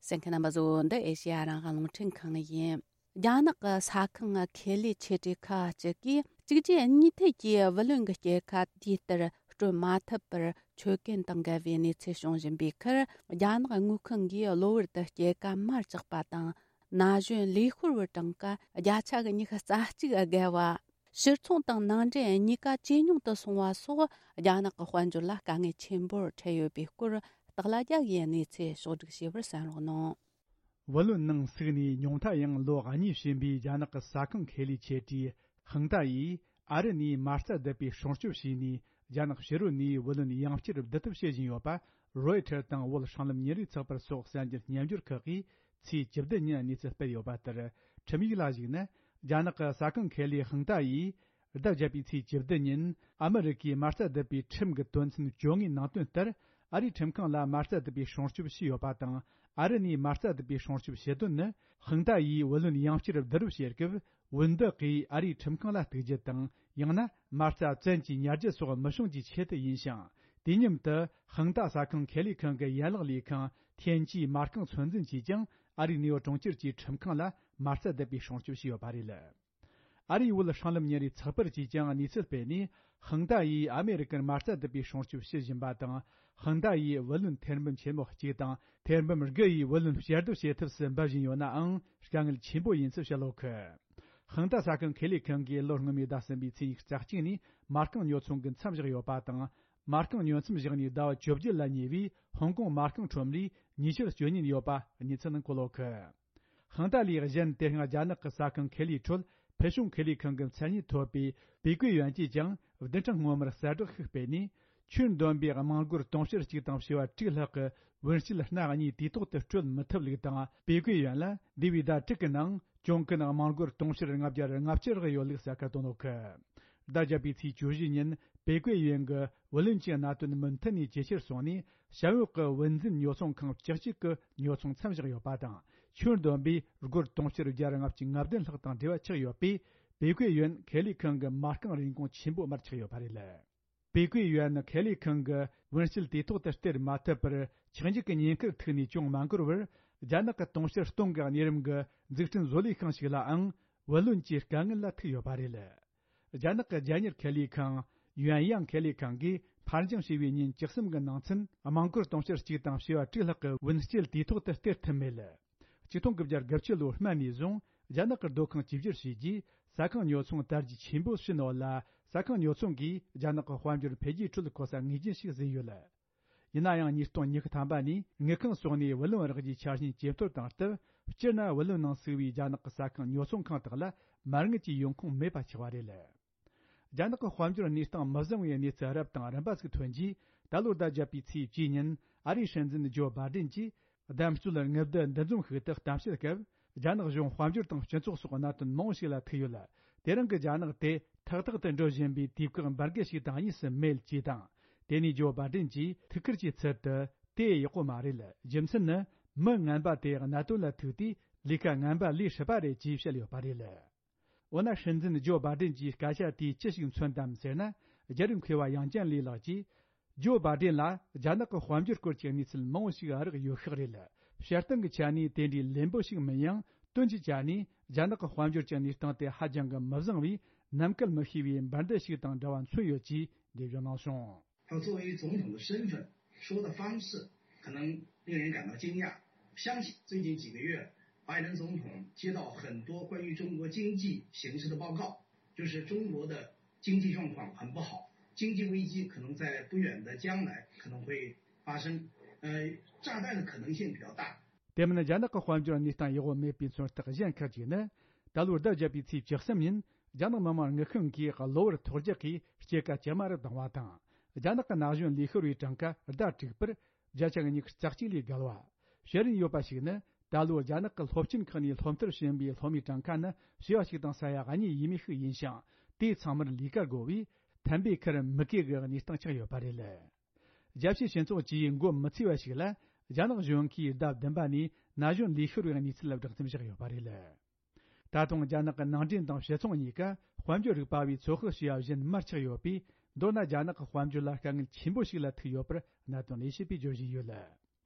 གསན་མཁན་རྣམ་པ་ཚོ། འདི་ཨེ་ཤེ་ཡ་རང་དབང་རླུང་འཕྲིན་ཁང་ཡིན། རྒྱ་ནག་གི་ས་ཁང་ཁེ་ལས་ཆེ་གྲས་ཁག་ཅིག་གིས་གཅིག་རྗེས་གཉིས་མཐུད་ཀྱིས་བུ་ལོན་གྱི་སྐྱེད་ཀ་དུས་ལྟར་སྤྲོད་མ་ཐུབ་པར་ཆོད་གན་དང་འགལ་བའི་གནས་ཚུལ་བྱུང་བཞིན་པའི་ཁར། རྒྱ་ནག་དངུལ་ཁང་གིས་གློ་བུར་དུ་སྐྱེད་ཀ་མར་བཅག་པ་དང་། ན་གཞོན་ལས་ཤོར་བའི་གྲངས་ཀ་བརྒྱ་ཆ་གི་ཉི་ཤུ་རྩ་གཅིག་བརྒལ་བ། ཕྱིར་ཚོང་དང་ནང་འདྲེན་གཉིས་ཀ་ཇེ་ཉུང་དུ་སོང་བ་སོགས། རྒྱ་ནག་གི་དཔལ་འབྱོར་ལ་དཀའ་ངལ་ཆེན་པོར་འཕྲད་ཡོད་པའི་སྐོར། སྟག་ལྷ་རྒྱལ་གྱིས་གནས་ཚུལ་ཕྱོགས་བསྒྲིགས་བྱས་པར་གསན་རོགས་གནང་། བུ་ལོན་ནང་ཟུག་ནས་ཉུང་མཐའ་ཡང་ལོ་གཉིས་ཕྱིན་པའི་རྒྱ་ནག་གི་ས་ཁང་ཁེ་ལས་ཆེ་གྲས་ཧང་ཏཱ་ཡིས་ཨ་རི་ནས་མ་རྩ་བསྡུ་བའི་སྲུང་སྐྱོབ་བྱས་ནས། རྒྱ་ནག་ཕྱི་རོལ་ནས་བུ་ལོན་ཡང་བསྐྱར་བསྡུ་ཐབས་བྱེད་བཞིན་ཡོད་པ། རོའི་ཊར་དང་བོད་སྲང་ལམ་ཉིན་རེའི་ཚགས་པར་སོགས་གསར་འགྱུར་སྙན་སྦྱོར་ཁག་གིས་ཚེས་བཅུ་བདུན་ཉིན་གནས་ཚུལ་སྤེལ་ཡོད་པ་ལྟར། ཁྲིམས་ཡིག་ལ་གཞིགས་ན། རྒྱ་ནག་གི་ས་ཁང་ཁེ་ལས་ཧང་ཏཱ་ཡིས་ཟླ་བརྒྱད་པའི་ཚེས་བཅུ་བདུན་ཉིན་ཨ་མི་རི་ཀའི་མ་རྩ་བསྡུ་བའི་ཁྲིམས་ཀྱི་དོན་ཚན་བཅོ་ལྔའི་ནང་དོན་ལྟར། ཨ་རིའི་ཁྲིམས་ཁང་ལ་མ་རྩ་བསྡུ་བའི་སྲུང་སྐྱོབ་ཞུས་ཡོད་པ་དང་། ཨ་རི་ནས་མ་རྩ་བསྡུ་བའི་སྲུང་སྐྱོབ་ཞུ་དོན་ནི། ཧང་ཏཱ་ཡིས་བུ་ལོན་ཡང་བསྐྱར་བསྡུ་རུབ་བྱེད་སྐབས། བུན་བདག་གིས་ཨ་རིའི་ཁྲིམས་ཁང་ལ་གཏུག་རྒྱུ་དང་། ཡང་ན་མ་རྩ་བཙན་གྱིས་ཉར་རྒྱུ་སོགས་མི་བྱུང་རྒྱུའི་ཆེད་དུ་ཡིན་ཞིང་། དུས་མཉམ་དུ་ཧང་ཏཱ་ས་ཁང་ཁེ་ལས་ཁང་གི་ཡན་ལག་ལས་ཁང་ཐེན་ཅིའི་མ་རྐང་ཚོད་འཛིན་གྱིས་ཀྱང་ཨ་རིའི་ནེའུ་ཡོག་གྲོང་ཁྱེར་གྱི་ཁྲིམས་ཁང་ལ་མ་རྩ་བསྡུ་བའི་སྲུང་སྐྱོབ་ཞུས་ཡོད་པ་རེད། ཨ་རིའི་བོད་སྲང་ལམ་ཉིན་རེའི་ཚགས་པར་གྱིས་ཀྱང་གནས་ཚུལ་སྤེལ་ནས། ཧང་ཏཱ་ཡིས་ཨ་མེ་རི་ཀར་མ་རྩ་བསྡུ་བའི་སྲུང་སྐྱོབ་ཞུ་བཞིན་པ་དང་། ཧང་ཏཱ་ཡིས་བུ་ལོན་ཐེར་འབུམ་ཆེན་མོ་གཅིག་དང་ཐེར་འབུམ་དགུ་ཡི་བུ་ལོན་ཞལ་བསྡུ་བྱེད་ཐབས་སུ་འབད་བཞིན་ཡོད་ནའང་། དཀའ་ངལ་ཆེན་པོ་ཡིན་ཚུལ་བཤད་ཡོད་གི། ཧང་ཏཱ་ས་ཁང་ཁེ་ལས་ཁང་གིས་ལོ་སྔོན་མའི་ཟླ་གསུམ་པའི་ཚེས་ཉི་ཤུ་རྩ་གཅིག་ནས་མ་རྐང་ཉོ་ཚོང་གི་མཚམས་བཞག་ཡོད་པ་དང་། མ་རྐང་ཉོ་མཚམས་བཞག་ནས་ཟླ་བ་བཅོ་བརྒྱད་ལ་ཉེ་བའི་ཧོང་ཀོང་མ་རྐང་ཁྲོམ་རའི་ཉེས་ཆད་གཅོད་ཉེན་ཡོད་པ་གནས་ཚུལ་ནང་བཀོད་ཡོད་གི། ཧང་ཏ་ལིས་གཞན་དེ་སྔ་རྒྱ་ནག་གི་ཟ་ཁང་ཁེ་ལིའི་ཁྲོད་ཕུལ་བྱུང་ཁེ་ལས་ཁང་གི་མཚན་སྙན་ཐོབ་པའི་པེ་ཀུའེ་ཡོན་གྱིས་ཀྱང་བདུན་ཕྲག་སྔོན་མར་གསལ་བསྒྲགས་ཤིག་སྤེལ་ནས། ཁྱོན་བསྡོམས་པའི་དམངས་སྒོར་དུང་ཕྱུར་གཅིག་དང་བྱེ་བ་དྲུག་ལྷག་གི་བུན་སྐྱེད་སྣ་གཉིས་དུས་ཐོག་ཏུ་སྤྲོད་མི་ཐུབ་ལུགས་དང་། པེ་ཀུའེ་ཡོན་ལ་འདས་པའི་ཟླ་དྲུག་གི་ནང་གྱོང་གུན་དམངས་སྒོར་དུང་ཕྱུར་ལྔ་བརྒྱ་ལྔ་བཅུ་ལྷག་ཡོད་ལུགས་གསལ་ཁ་བཏོན་ཡོད་གི། ཟླ་བརྒྱད་པའི་ཚེས་བཅུ་བཞི་ཉིན་པེ་ཀུའེ་ཡོན་གྱིས་བུ་ལོན་གྱི་གནད་དོན་མུ་མཐུད་ནས་ཇེ་ཆེར་སོང་ནས། བྱ་འོག་གི་བུན་འཛིན་ཉོ་ཚོང་ཁང་བཅུ་གཅིག་གི་ཉོ་ཚོང་མཚམས་བཞག་ཡོད་པ་དང་། ཁྱོན་བསྡོམས་པའི་སྒོར་དུང་ཕྱུར་བརྒྱ་ལྔ་བཅུ་ང་བདུན་ལྷག་དང་འབྲེལ་བ་ཆགས་ཡོད་པས། པེ་ཀུའེ་ཡོན་ཁེ་ལས་ཁང་གི་མ་རྐང་རིན་གོང་ཆེན་པོ་མར་ཆག་ཡོད་པ་རེད། པེ་ཀུའེ་ཡོན་ཁེ་ལས་ཁང་གི་བུན་སྐྱེད་དུས་ཐོག་ཏུ་སྟེར་མ་ཐུབ་པར། ཆག་འཇིག་གི་ཉེན་ཁར་ཐུག་ནས་ཅུང་མ་འགོར་བར། རྒྱ་ནག་གི་དུང་ཕྱུར་སྟོང་གི་གནས་རིམ་གྱི་འཛུགས་སྐྲུན་བཟོ་ལས་ཁང་ཞིག་ལའང་བུ་ལོན་གྱི་དཀའ་ངལ་ལ་ཐུག་ཡོད་པ་རེད། རྒྱ་ནག་གི་རྒྱལ་གཉེར་ཁེ་ལས་ཁང་ཡོན་ཡང་ཁེ་ལས་ཁང་གིས་ཕར་འགྱངས་བྱས་པའི་ཉིན་བཅུ་གསུམ་གྱི་ནང་ཚུན། དམངས་སྒོར་དུང་ཕྱུར་གཅིག་དང་བྱེ་བ་དྲུག་ལྷག་གི་བུན་སྐྱེད་དུས་ཐོག་ཏུ་སྟེར་ཐུབ་མེད། ཆིག་སྟོང་དགུ་བརྒྱ་དགུ་བཅུ་ལོའི་སྨད་ནས་བཟུང་རྒྱ་ནག་གི་སྡོད་ཁང་བཅོས་བསྒྱུར་བྱས་རྗེས། ཟ་ཁང་ཉོ་ཚོང་དར་རྒྱས་ཆེན་པོ་ཕྱིན་ཡོད་ལ། ཟ་ཁང་ཉོ་ཚོང་གིས་རྒྱ་ནག་གི་དཔལ་འབྱོར་འཕེལ་རྒྱས་ཁྲོད་གོ་ས་ངེས་ཅན་ཞིག་ཟིན་ཡོད། ཡིན་ན་ཡང་ཉིས་སྟོང་ཉི་ཤུ་ཐམ་པ་ནས་དངུལ་ཁང་སོགས་ནས་བུ་ལོན་རག་རྒྱུའི་ཆ་རྐྱེན་ཇེ་མཐོར་བཏང་སྟབས། སྤྱིར་ན་བུ་ལོན་ནང་ཚུད་པའི་རྒྱ་ནག་གི་ཟ་ཁང་ཉོ་ཚོང་ཁང་དག་ལ་མ་དངུལ་གྱི་ཡོང་ཁུངས་མེད་པ་ཆགས་པ་རེད། རྒྱ་ནག་གི་དཔལ་འབྱོར་གནས་སྟངས་མི་བཟང་བའི་གནས་ཚུལ་རབ་དང་རིམ་པ་ཞིག་ཐོན་རྗེས། ད་ལོའི་ཟླ་བརྒྱད་པའི་ཚེས་བཅུའི་ཉིན་ཨ་རིའི་སྲིད་འཛིན་ཇོ་བྷ་ཌེན་གྱིས་བདམས་སྲོལ་དངུལ་བསྡུ་འདུ་འཛོམས་ཤིག་ཏུ་གཏམ་བཤད་སྐབས། རྒྱ་ནག་གཞུང་དཔལ་འབྱོར་དང་སྤྱི་ཚོགས་སོགས་གནད་དོན་མང་བོ་ཞིག་ལ་ཐུག་ཡོད། དེ་རིང་གི་རྒྱ་ནག་དེ་ཐག་ཐག་ཏུ་འགྲོ་བཞིན་པའི་དུས་བཀག་འབར་གས་ཤིག་དང་གཉིས་སུ་མེད་ཅེས་དང་། དེ་ནས་ཇོ་བྷ་ཌེན་གྱིས་ཐུགས་ཁུར་གྱི་ཚུལ་དུ། དེ་ཡག་པོ་མ་རེད། རྒྱུ་མཚན་ནི་མི་ངན་པ་དེ་གནད་དོན་ལ་ཐུག་དུས་ལས་ཀ་ངན་པ་ལས་སྲིད་པ་རེད་ཅེས་བཤད་ཡོད་པ་རེད། འོ་ན་སྲིད་འཛིན་ཇོ་བྷ་ཌེན་གྱིས་སྐད་ཆ་དེས་ཅི་ཞིག་མཚོན་དམ་ཟེར་ན། རྒྱལ་རབས་མཁས་པ་ཡང་ཅན་ལི་ལགས་ཀྱིས། ཇོ་བྷ་ཌེན་ལ་རྒྱ་ནག་གི་དཔལ་འབྱོར་སྐོར་གྱི་གནས་ཚུལ་མང་བོ་ཞིག་རག་ཡོད་ཤག་རེད། བྱེད་སྟངས་ཀྱི་ཆ་ནས་དེ་འདྲའི་ལེན་པོ་ཞིག་མིན་ཡང་། དོན་གྱི་ཆ་ནས་རྒྱ་ནག་གི་དཔལ་འབྱོར་གྱི་གནས་སྟངས་དེ་ཧ་ཅང་གི་མི་བཟང་བས། ནམ་གལ་མི་ཤེས་པའི་འབར་མདེལ་ཞིག་དང་འདྲ་བ་མཚོན་ཡོད་ཅེས་འགྲེལ་བརྗོད་གནང་སོང་། 他作为总统的身份，说的方式可能令人感到惊讶。相信最近几个月，拜登总统接到很多关于中国经济形势的报告，就是中国的经济状况很不好，经济危机可能在不远的将来可能会发生，呃，炸弹的可能性比较大。 དེ་མིན་རྒྱ་ནག་གི་དཔལ་འབྱོར་གནས་སྟངས་ཡག་པོ་མེད་པའི་མཚོན་རྟགས་གཞན་ཁག་ཅིག་ནི། ད་ལོའི་ཟླ་བརྒྱད་པའི་ཚེས་བཅུ་གསུམ་ཉིན་རྒྱ་ནག་མི་དམངས་དངུལ་ཁང་གིས་གློ་བུར་ཐོལ་རྒྱག་གིས་སྐྱེད་ཀ་ཇེ་དམའ་རུ་བཏང་བ་དང་། རྒྱ་ནག་གི་ན་གཞོན་ལས་ཤོར་བའི་གྲངས་ཀ་ཟླ་དྲུག་པར་བརྒྱ་ཆ་ཉི་ཤུ་རྩ་གཅིག་ལས་བརྒལ་བ། བཤད་རིན་ཡོད་པ་ཞིག་ནི། ད་ལོ་རྒྱ་ནག་གི་སློབ་ཆེན་ཁག་ནས་སློབ་མཐར་ཕྱིན་པའི་སློབ་མའི་གྲངས་ཀ་ནི་བྱེ་བ་གཅིག་དང་ས་ཡ་གཉིས་ཡས་མས་ཤིག་ཡིན་ཞིང་། དེ་ཚང་མར་ལས་ཀ་དགོས་པས། ཐན་པའི་ཁར་མི་སྐྱེ་གི་གནས་སྟངས་ཆགས་ཡོད་པ་རེད། རྒྱལ་སྤྱིའི་སྤྱི་ཚོགས་ཀྱིས་མགོ་མི་ཚོས་པ་ཞིག་ལ། རྒྱ་ནག་གཞུང་གིས་ཟླ་བདུན་པ་ནས་ན་གཞོན་ལས་ཤོར་བའི་གནས་ཚུལ་ལ་བསྒྲགས་གཏམ་བཞག་ཡོད་པ་རེད། ད་དུང་རྒྱ་ནག་གི་ནང་འདྲེན་དང་ཕྱི་ཚོང་གཉིས་ཀ་དཔལ་འབྱོར་རིག་པ་བས་ཚོད་དཔག་བྱས་པ་བཞིན་མར་ཆག་ཡོད་པས། མདོར་ན་རྒྱ་ནག་གི་དཔལ་འབྱོར་ལ་དཀའ་ངལ་ཆེན་པོ་ཞིག་ལ་ཐུག་ཡོད་པར་གནད་དོན་ལས་བྱེད་པས་བརྗོད་བཞིན་ཡོད།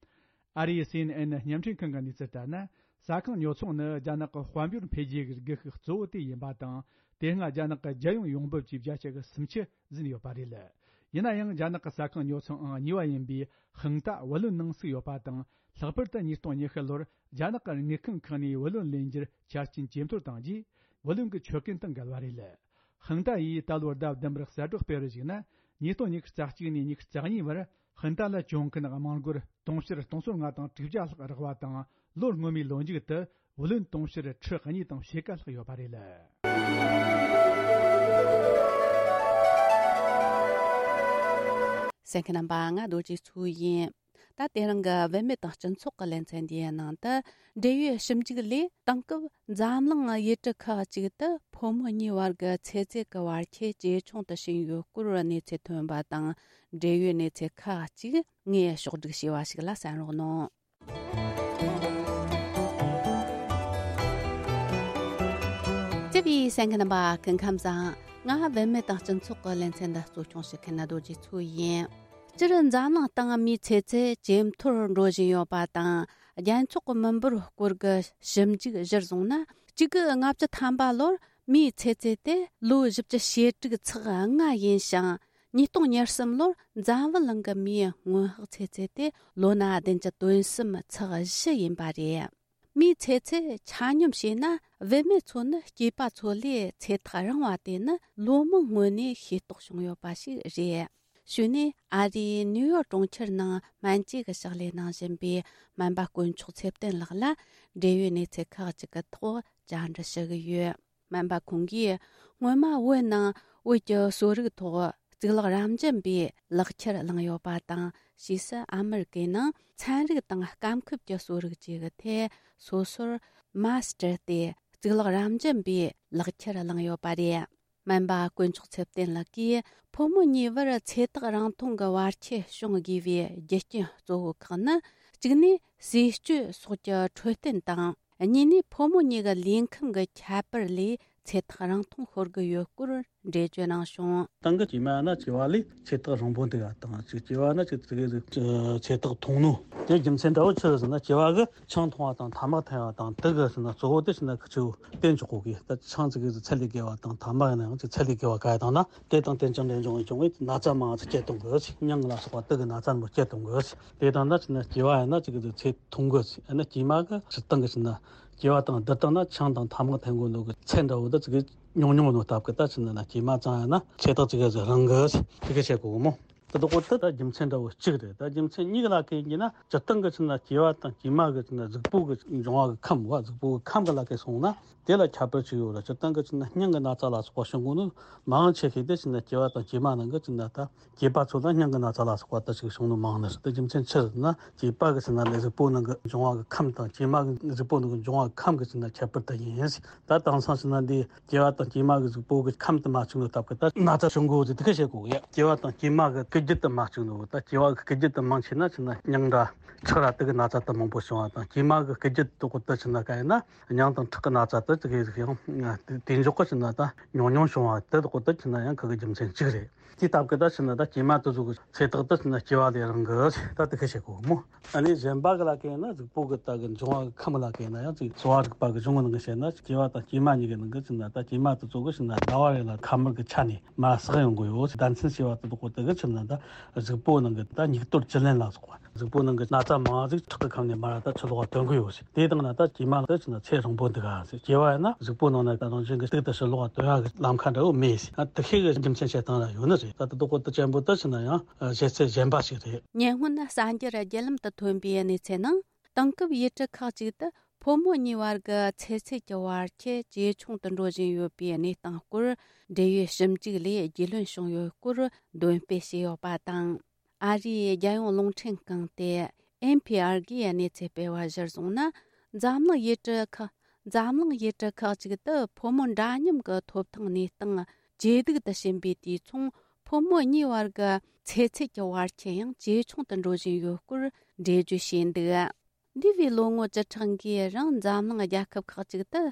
ཨ་རིའི་སི་ཨེན་ཨེན་བརྙན་འཕྲིན་ཁང་གི་གནས་ཚུལ་ལྟར་ན། ཟ་ཁང་ཉོ་ཚོང་ནི་རྒྱ་ནག་གི་དཔལ་འབྱོར་འཕེལ་རྒྱས་ཀྱི་སྒུལ་ཤུགས་གཙོ་བོ་དེ་ཡིན་པ་དང་། དེ་སྔ་རྒྱ་ནག་གི་རྒྱལ་ཡོངས་ཡོང་འབབ་ཀྱི་བརྒྱ་ཆ་གི་སུམ་ཅུ་ཟིན་ཡོད་པ་རེད། ཡིན་ན་ཡང་རྒྱ་ནག་གི་ཟ་ཁང་ཉོ་ཚོང་ཨང་གཉིས་པ་ཡིན་པའི་ཧང་ཏ་བུ་ལོན་ནང་ཚུད་ཡོད་པ་དང་། ལྷག་པར་དུ་ཉིས་སྟོང་ཉི་ཤུ་ལོར་རྒྱ་ནག་གི་དངུལ་ཁང་ཁག་ནས་བུ་ལོན་ལེན་རྒྱུར་ཆ་རྐྱེན་ཇེ་མཐོར་བཏང་རྗེས། བུ་ལོན་གྱི་ཆོད་གན་དང་འགལ་བ་རེད། ཧང་ཏ་ཡིས་ད་ལོར་ཟླ་བདུན་པར་གསལ་བསྒྲགས་སྤེལ་བར་གཞིགས་ན། ཉིས་སྟོང་ཉི་ཤུ་རྩ་གཅིག་ནས་ཉི་ཤུ་རྩ་གཉིས་བར་ཧང་ཏ་ལ་གྱོང་གུན་དམངས་སྒོར་དུང་ཕྱུར་སྟོང་ཚོ་ལྔ་དང་དྲུག་བརྒྱ་ལྷག་རག་པ་དང་། ལོ་སྔོན་མའི་ལོ་མཇུག་ཏུ་བུ་ལོན་དུང་ཕྱུར་ཁྲི་གཉིས་དང་ཕྱེད་ཀ་ལྷག་ཡོད་པ་རེད། གསན་མཁན་རྣམ་པ། ང་རྡོ་རྗེ་མཚོ་ཡིན། ད་དེ་རིང་གི་བུད་མེད་དང་སྤྱི་ཚོགས་ཀྱི་ལེ་ཚན་འདིའི་ནང་དུ། འབྲེལ་ཡོད་ཞིབ་འཇུག་ལས། དེང་སྐབས་འཛམ་གླིང་ཡུལ་གྲུ་ཁག་ཅིག་ཏུ་ཕོ་མོ་གཉིས་བར་གྱི་ཚེ་ཚད་ཀྱི་བར་ཁྱད་ཇེ་ཆུང་དུ་ཕྱིན་ཡོད་སྐོར་གནས་ཚུལ་ཐོན་པ་དང་། འབྲེལ་ཡོད་གནས་ཚུལ་ཁག་ཅིག་ངས་ཕྱོགས་བསྒྲིགས་བྱས་པ་ཞིག་ལ་གསན་རོགས་གནང་། བརྩེ་བའི་གསན་མཁན་རྣམ་པ། སྐུ་ཁམས་བཟང་། ང་བུད་མེད་དང་སྤྱི་ཚོགས་ཀྱི་ལེ་ཚན་འདི་གཙོ་སྐྱོང་བྱེད་མཁན་རྡོ་རྗེ་མཚོ་ཡིན། སྤྱིར་འཛམ་གླིང་སྟེང་མིའི་ཚེ་ཚད་ཇེ་མཐོར་འགྲོ་བཞིན་ཡོད་པ་དང་། རྒྱལ་ཚོགས་ཀྱི་མི་འབོར་སྐོར་གྱི་ཞིབ་འཇུག་གཞིར་བཟུང་ན། གཅིག་དགུ་ལྔ་བཅུ་ཐམ་པ་ལོར་མིའི་ཚེ་ཚད་དེ་ལོ་བཞི་བཅུ་ཞེ་དྲུག་ཚེག་ལྔ་ཡིན་ཞིང་། ཉིས་སྟོང་ཉེར་གསུམ་ལོར་འཛམ་བུ་གླིང་གི་མིའི་སྔོན་དཔག་ཚེ་ཚད་དེ་ལོ་ན་བདུན་བཅུ་དོན་གསུམ་ཚེག་བཞི་ཡིན་པ་རེད། མིའི་ཚེ་ཚད་ཆ་སྙོམས་བྱས་ན། བུད་མེད་ཚོ་ནི་སྐྱེས་པ་ཚོ་ལས་ཚེ་ཐག་རིང་བ་དེ་ནི་ལོ་མང་སྔོན་ནས་ཤེས་རྟོགས་བྱུང་ཡོད་པ་ཞིག་རེད། གཞུག་ནས་ཨ་རིའི་ནིའུ་ཡོག་གྲོང་ཁྱེར་ནང་སྨན་བཅོས་ཀྱི་ཕྱག་ལས་གནང་བཞིན་པའི་སྨན་པ་དཀོན་མཆོག་ཚེ་བརྟན་ལགས་ལ་འབྲེལ་ཡོད་གནས་ཚུལ་ཁག་ཅིག་གི་ཐོག་བཅར་འདྲི་ཞུ་གི་ཡོད། སྨན་པ་ཁོང་གིས་སྔོན་མ་བོད་ནང་བོད་ཀྱི་གསོ་རིག་ཐོག་གཙུག་ལག་རབ་འབྱམས་པའི་ལག་ཁྱེར་བླངས་ཡོད་པ་དང་། ཕྱིས་སུ་ཨ་མི་རི་ཀའི་ནང་ཚན་རིག་དང་སྐམ་ཁུབ་ཀྱི་གསོ་རིག་བཅས་ཀྱི་ཐད་སོ་སོར་མཱ་སི་ཊར་ཏེ་གཙུག་ལག་རབ་འབྱམས་པའི་ལག་ཁྱེར་བླངས་ཡོད་པ་རེད། སྨན་པ་དཀོན་མཆོག་ཚེ་བརྟན་ལགས་ཀྱིས་ཕོ་མོ་གཉིས་བར་ཚེ་ཐག་རིང་ཐུང་གི་བར་ཆད་བྱུང་དགོས་པའི་རྒྱུ་རྐྱེན་གཙོ་བོ་ཁག་ནི། གཅིག་ནས་ཟས་སྤྱོད་སོགས་ཀྱི་འཕྲོད་བསྟེན་དང་། གཉིས་ནས་ཕོ་མོ་གཉིས་ཀྱི་ལུས་ཁམས་ཀྱི་ཁྱད་པར་ལས་ཚེ་ཐག་རིང་ཐུང་ཤོར་གྱི་ཡོད་སྐོར་འགྲེལ་བརྗོད་གནང་བྱུང་། སྟེང་གི་སྐྱེས་མ་ན་སྐྱེ་བ་ལས་ཚེ་ཐག་རིང་པོ་འདུག་པ་དང་། གཅིག་སྐྱེ་བ་ན་གཅིག་ཙི་གེ་ཟིག་ཚེ་ཐག་ཐུང་ནོ། དེ་རྒྱུ་མཚན་འདྲ་བོ་ཆི་རེད་ཟེར་ན། སྐྱེ་བ་གི་ཆང་འཐུང་བ་དང་ཐ་མག་འཐེན་པ་དང་དེ་གི་ཟེར་ན་གཙོ་བོ་དེ་ཟེར་ན་ཁི་ཆོ་བསྟེན་ཆོག་གོ་གི། ད་ཆང་ཙི་གེ་ཟིག་ཚད་ལས་བརྒལ་བ་དང་ཐ་མག་ཡིན་ན་ཡང་ཅིག་ཚད་ལས་བརྒལ་བ་ག་ཡ་དང་ན། དེ་དང་དེ་ཅང་འབྲེལ་འབྱུང་བའི་བྱུང་བའི་ན་ཚ་མང་ཙི་སྐྱེད་གཏོང་གི། མྱང་ལ་སོགས་པ་དེ་གི་ན་ཚ་མོ་སྐྱེད་གཏོང་གི། དེ་དང་ན་ཟེར་ན་སྐྱེ་བ་ཡིན་ན་ཙི་གེ་ཟིག་ཚེ་ཐུང་གི། ཡིན་ན་སྐྱེས་མ་གི་སྤྱིར་བཏང་གི་ཟེར་ན་སྐྱེ་བ་དང་བསྡུར་བཏང་ན་ཆང་དང་ཐ་མག་འཐེན་དགོས་ནོ་གི་ཚད་འདྲ་བོ་ད་ཙི་གེ་ཉུང་ཉུང་ནོ་སྟབས་གི། ད་ཟེར་ན་ན་སྐྱེས་མ་ཙང་ཡིན་ན་ཚེ་ཐག་ཙི་གེ་ཟིག་རིང་གི་དེ་གི་བཤད་གོ་གི་མོ། དེ་དག་གོ་དེ་ད་རྒྱུ་མཚན་འདྲ་བོ་གཅིག་རེད། ད་རྒྱུ་མཚན་གཉིས་ཀ་ལ་ཁེལ་གྱི་ན་སྤྱིར་བཏང་གི་ཆི་ན་སྐྱེ་བ་དང་སྐྱེས་མ་གི་ཆི་ན་གཟུགས་པོ་གི་འབྱུང་བ་གི་ཁམས་བ། གཟུགས་པོ་གི་ཁམས་གི་ལ་ཁེལ་སོང་ན་དེ་ལ་ཁྱད་པར་ཅིག་ཡོད་རེད། སྤྱིར་བཏང་གི་ཆི་ན་སྙིང་གི་ན་ཚ་ལ་སོགས་པ་བྱུང་གོ་ནོ་མང་ཆེ་ཤོས་དེ་ཆི་ན་སྐྱེ་བ་དང་སྐྱེས་མ་ནང་གི་ཆི་ན་ད་སྐྱེས་པ་ཚོ་ལ་སྙིང་གི་ན་ཚ་ལ་སོགས་པ་ད་ཅིག་བྱུང་ནོ་མང་ནི་རེད། དེ་རྒྱུ་མཚན་ཆི་རེད་ན་སྐྱེས་པ་གི་ཆི་ན་ལས་གཟུགས་པོ་ནང་གི་འབྱུང་བ་གི་ཁམས་དང་སྐྱེས་མ་གི་གཟུགས་པོ་ནང་གི་འབྱུང་བ་གི་ཁམས་གི་ཆི་ན་ཁྱད་པར་དེ་ཡིན། ད་དེང་སང་ཆི་ན་འདི་སྐྱེ་བ་དང་སྐྱེས་མ་གི་གཟུགས་པོ་གི་ཁམས་དེ་མ་བཅུག་ནོ་སྟབས་གི་ད་ན་ཚ་བྱུང་གོ་ཟེར་དེ་ག་བཤད་གོ་གི། སྐྱེ་བ་དང་སྐྱེས་མ་གི་སྐུལ་རྒྱུ་དེ་མ་བཅུག་ནོ། ད་སྐྱེ་བ་གི་སྐུལ་རྒྱུ་དེ་མང་ཆེ་ན་ཆི་ན་སྙིང་འདྲ་ཁྲག་ར་དེ་གི་ན་ཚ་དེ་མང་པོ་བྱུང་བ་དང་། སྐྱེས་མ་གི་སྐུལ་རྒྱུ་དེ་གོ་ད་ཆི་ན་ག་ཡིན་ན་སྙིང་དང་ཁྲག་གི་ན་ཚ་དེ་དེ་གི་ཡང་དེ་འཇོག་གི་ཆི་ན་ད་ཉུང་ཉུང་བྱུང་བ་དེ་གོ་ད་ཆི་ན་ཡང་ཁ་གི་རྒྱུ་མཚན་གཅིག་རེད། དེ་སྟབས་གི་ད་ཆི་ན་ད་སྐྱེས་མ་དེ་ཚོ་གི་ཚེ་ཐག་དེ་ཆི་ན་སྐྱེ་བ་ལས་རིང་གི་ད་དེ་ག་བཤད་གོ་མོ། ཨ་ནི་གཞན་པ་གི་ལ་ཁེལ་ན་གཟུགས་པོ་གི་ད་གི་འབྱུང་བ་གི་ཁམས་ལ་ཁེལ་ན་ཡང་ཅིག་གསོ་བ་རིག་པ་གི་གཞུང་གི་ནང་གི་བཤད་ན་སྐྱེ་བ་དང་སྐྱེས་མ་གཉིས་ཀྱི་ནང་གི་ཆི་ན་ད་སྐྱེས་མ་དེ་ཚོ་གི་ཆི་ན་ཟླ་བ་རེ་ལ་ཁ་དམར་གི་ཆ་ནས་མར་བསགས་ཡོང་གི་ཡོད། ཟླ་མཚན་ཞེས་པ་དེ་དག་གོ་དེ་གི་ཆི་ན་ད་གཟུགས་པོ་ནང་གི་ད་སྙིགས་དོར་བཅུད་ལེན་ལ་སོགས་པ། གཟུགས་པོ་ནང་གི་ན་ཚ་མང་ཟིག་ཁྲག་གི་ཁམས་ནས་མར་ད་ཕྱི་ལོགས་ལ་ཐོན་གི་ཡོད་ཟེར། དེ་དང་ན་ད་སྐྱེས་མ་ལ་ད་ཆི་ན་ཚེ་རིང་པོ་འདུག་ག་ཟེར། སྐྱེ་བ་ཡིན་ན་གཟུགས་པོ་ནང་ན་ད་རང་བཞིན་གི་གཏུག་ཏུ་ཕྱི་ལོགས་ལ་ཐོན་ཡ་གི་ལམ་ཁ་འདྲ་བོ་མེད་ཟེར། ད་དེ་དག་གོ་ད་ཅན་པོ་ད་ཆི་ན་ཡོད་ནི་རེད། ད་དེ་དག་གོ་ད་ཅན་པོ་ད་ཆི་ན་ཡང་བཤད་ཚད་གཞན་པ་ཞིག་རེད། ཉེ་སྔོན་གསར་འགྱུར་བརྒྱུད་ལམ་དུ་ཐོན་པའི་གནས་ཚུལ་ནང་། དེང་སྐབས་ཡུལ་གྲུ་ཁག་ཅིག་ཏུ་ཕོ་མོ་གཉིས་བར་གྱི་ཚེ་ཚད་ཀྱི་བར་ཁྱད་ཇེ་ཆུང་དུ་འགྲོ་བཞིན་ཡོད་པའི་གནས་སྟངས་སྐོར་འབྲེལ་ཡོད་ཞིབ་འཇུག་ལས་རྒྱུས་ལོན་བྱུང་ཡོད་སྐོར་འདོན་སྤེལ་བྱས་ཡོད་པ་དང་། ཨ་རིའི་རྒྱལ་ཡོངས་རླུང་འཕྲིན་ཁང་སྟེ་ཨེན་ཕི་ཨར་གྱིས་གནས་ཚུལ་སྤེལ་བ་གཞིར་བཟུང་ན། འཛམ་གླིང་ཡུལ་གྲུ་ཁག་འཛམ་གླིང་ཡུལ་གྲུ་ཁག་ཅིག་ཏུ་ཕོ་མོ་འདྲ་མཉམ་གྱི་ཐོབ་ཐང་གནས་སྟངས་ཇེ་སྡུག་ཏུ་ཕྱིན་པའི་དུས་མཚུངས། ཕོ་མོ་གཉིས་བར་གྱི་ཚེ་ཚད་ཀྱི་བར་ཁྱད་ཡང་ཇེ་ཆུང་དུ་འགྲོ་བཞིན་ཡོད་སྐོར་འགྲེལ་བརྗོད་བྱས་འདུག་འདས་པའི་ལོ་ངོ་བཅུ་ཕྲག་འགའི་རིང་འཛམ་གླིང་རྒྱལ་ཁབ་ཁག་ཅིག་ཏུ་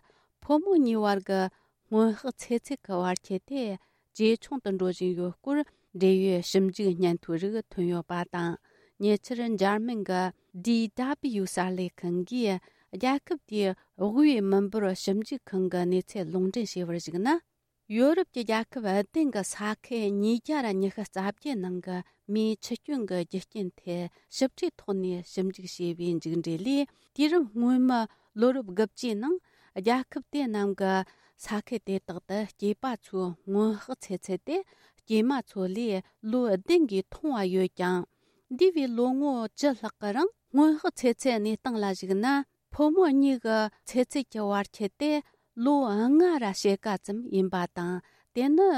ཕོ་མོ་གཉིས་བར་གྱི་སྔོན་དཔག་ཚེ་ཚད་ཀྱི་བར་ཁྱད་དེ་ཇེ་ཆུང་དུ་འགྲོ་བཞིན་ཡོད་སྐོར་འབྲེལ་ཡོད་ཞིབ་འཇུག་སྙན་ཐོའི་རིགས་ཐོན་ཡོད་པ་དང་། ཉེ་ཆར་འཇར་མན་གྱི་ཌི་ཌབ་ལི་ཡུ་གསར་ལས་ཁང་གིས་རྒྱལ་ཁབ་དེའི་དབུས་མི་འབོར་ཞིབ་འཇུག་ཁང་གི་གནས་ཚུལ་ལུང་འདྲེན་བྱས་པར་གཞིགས་ན། ཡོ་རོབ་ཀྱི་རྒྱལ་ཁབ་བདུན་གྱི་ས་ཁུལ་ཉིས་བརྒྱ་ར་ཉི་ཤུ་རྩ་བརྒྱད་ནང་གི་མིའི་འཆི་སྐྱོན་གྱི་རྒྱུ་རྐྱེན་ཐད་ཞིབ་ཕྲའི་ཐོག་ནས་ཞིབ་འཇུག་བྱས་པའི་མཇུག་འབྲས་ལས། དུས་རབས་སྔོན་མའི་ལོ་རབས་དགུ་བཅུའི་ནང་རྒྱལ་ཁབ་དེ་རྣམས་ཀྱི་ས་ཁུལ་དེ་དག་ཏུ་སྐྱེས་པ་ཚོའི་སྔོན་དཔག་ཚེ་ཚད་དེ་སྐྱེས་མ་ཚོ་ལས་ལོ་བདུན་གྱིས་ཐུང་བ་ཡོད་ཀྱང་། འདས་པའི་ལོ་ངོ་བཅུ་ལྷག་གི་རིང་སྔོན་དཔག་ཚེ་ཚད་གནས་སྟངས་ལ་གཞིགས་ན། ཕོ་མོ་གཉིས་ཀྱི་ཚེ་ཚད་ཀྱི་བར་ཁྱད་དེ་ལོ་ལྔ་ར་ཕྱེད་ཀ་ཙམ་ཡིན་པ་དང་། དེ་ནི་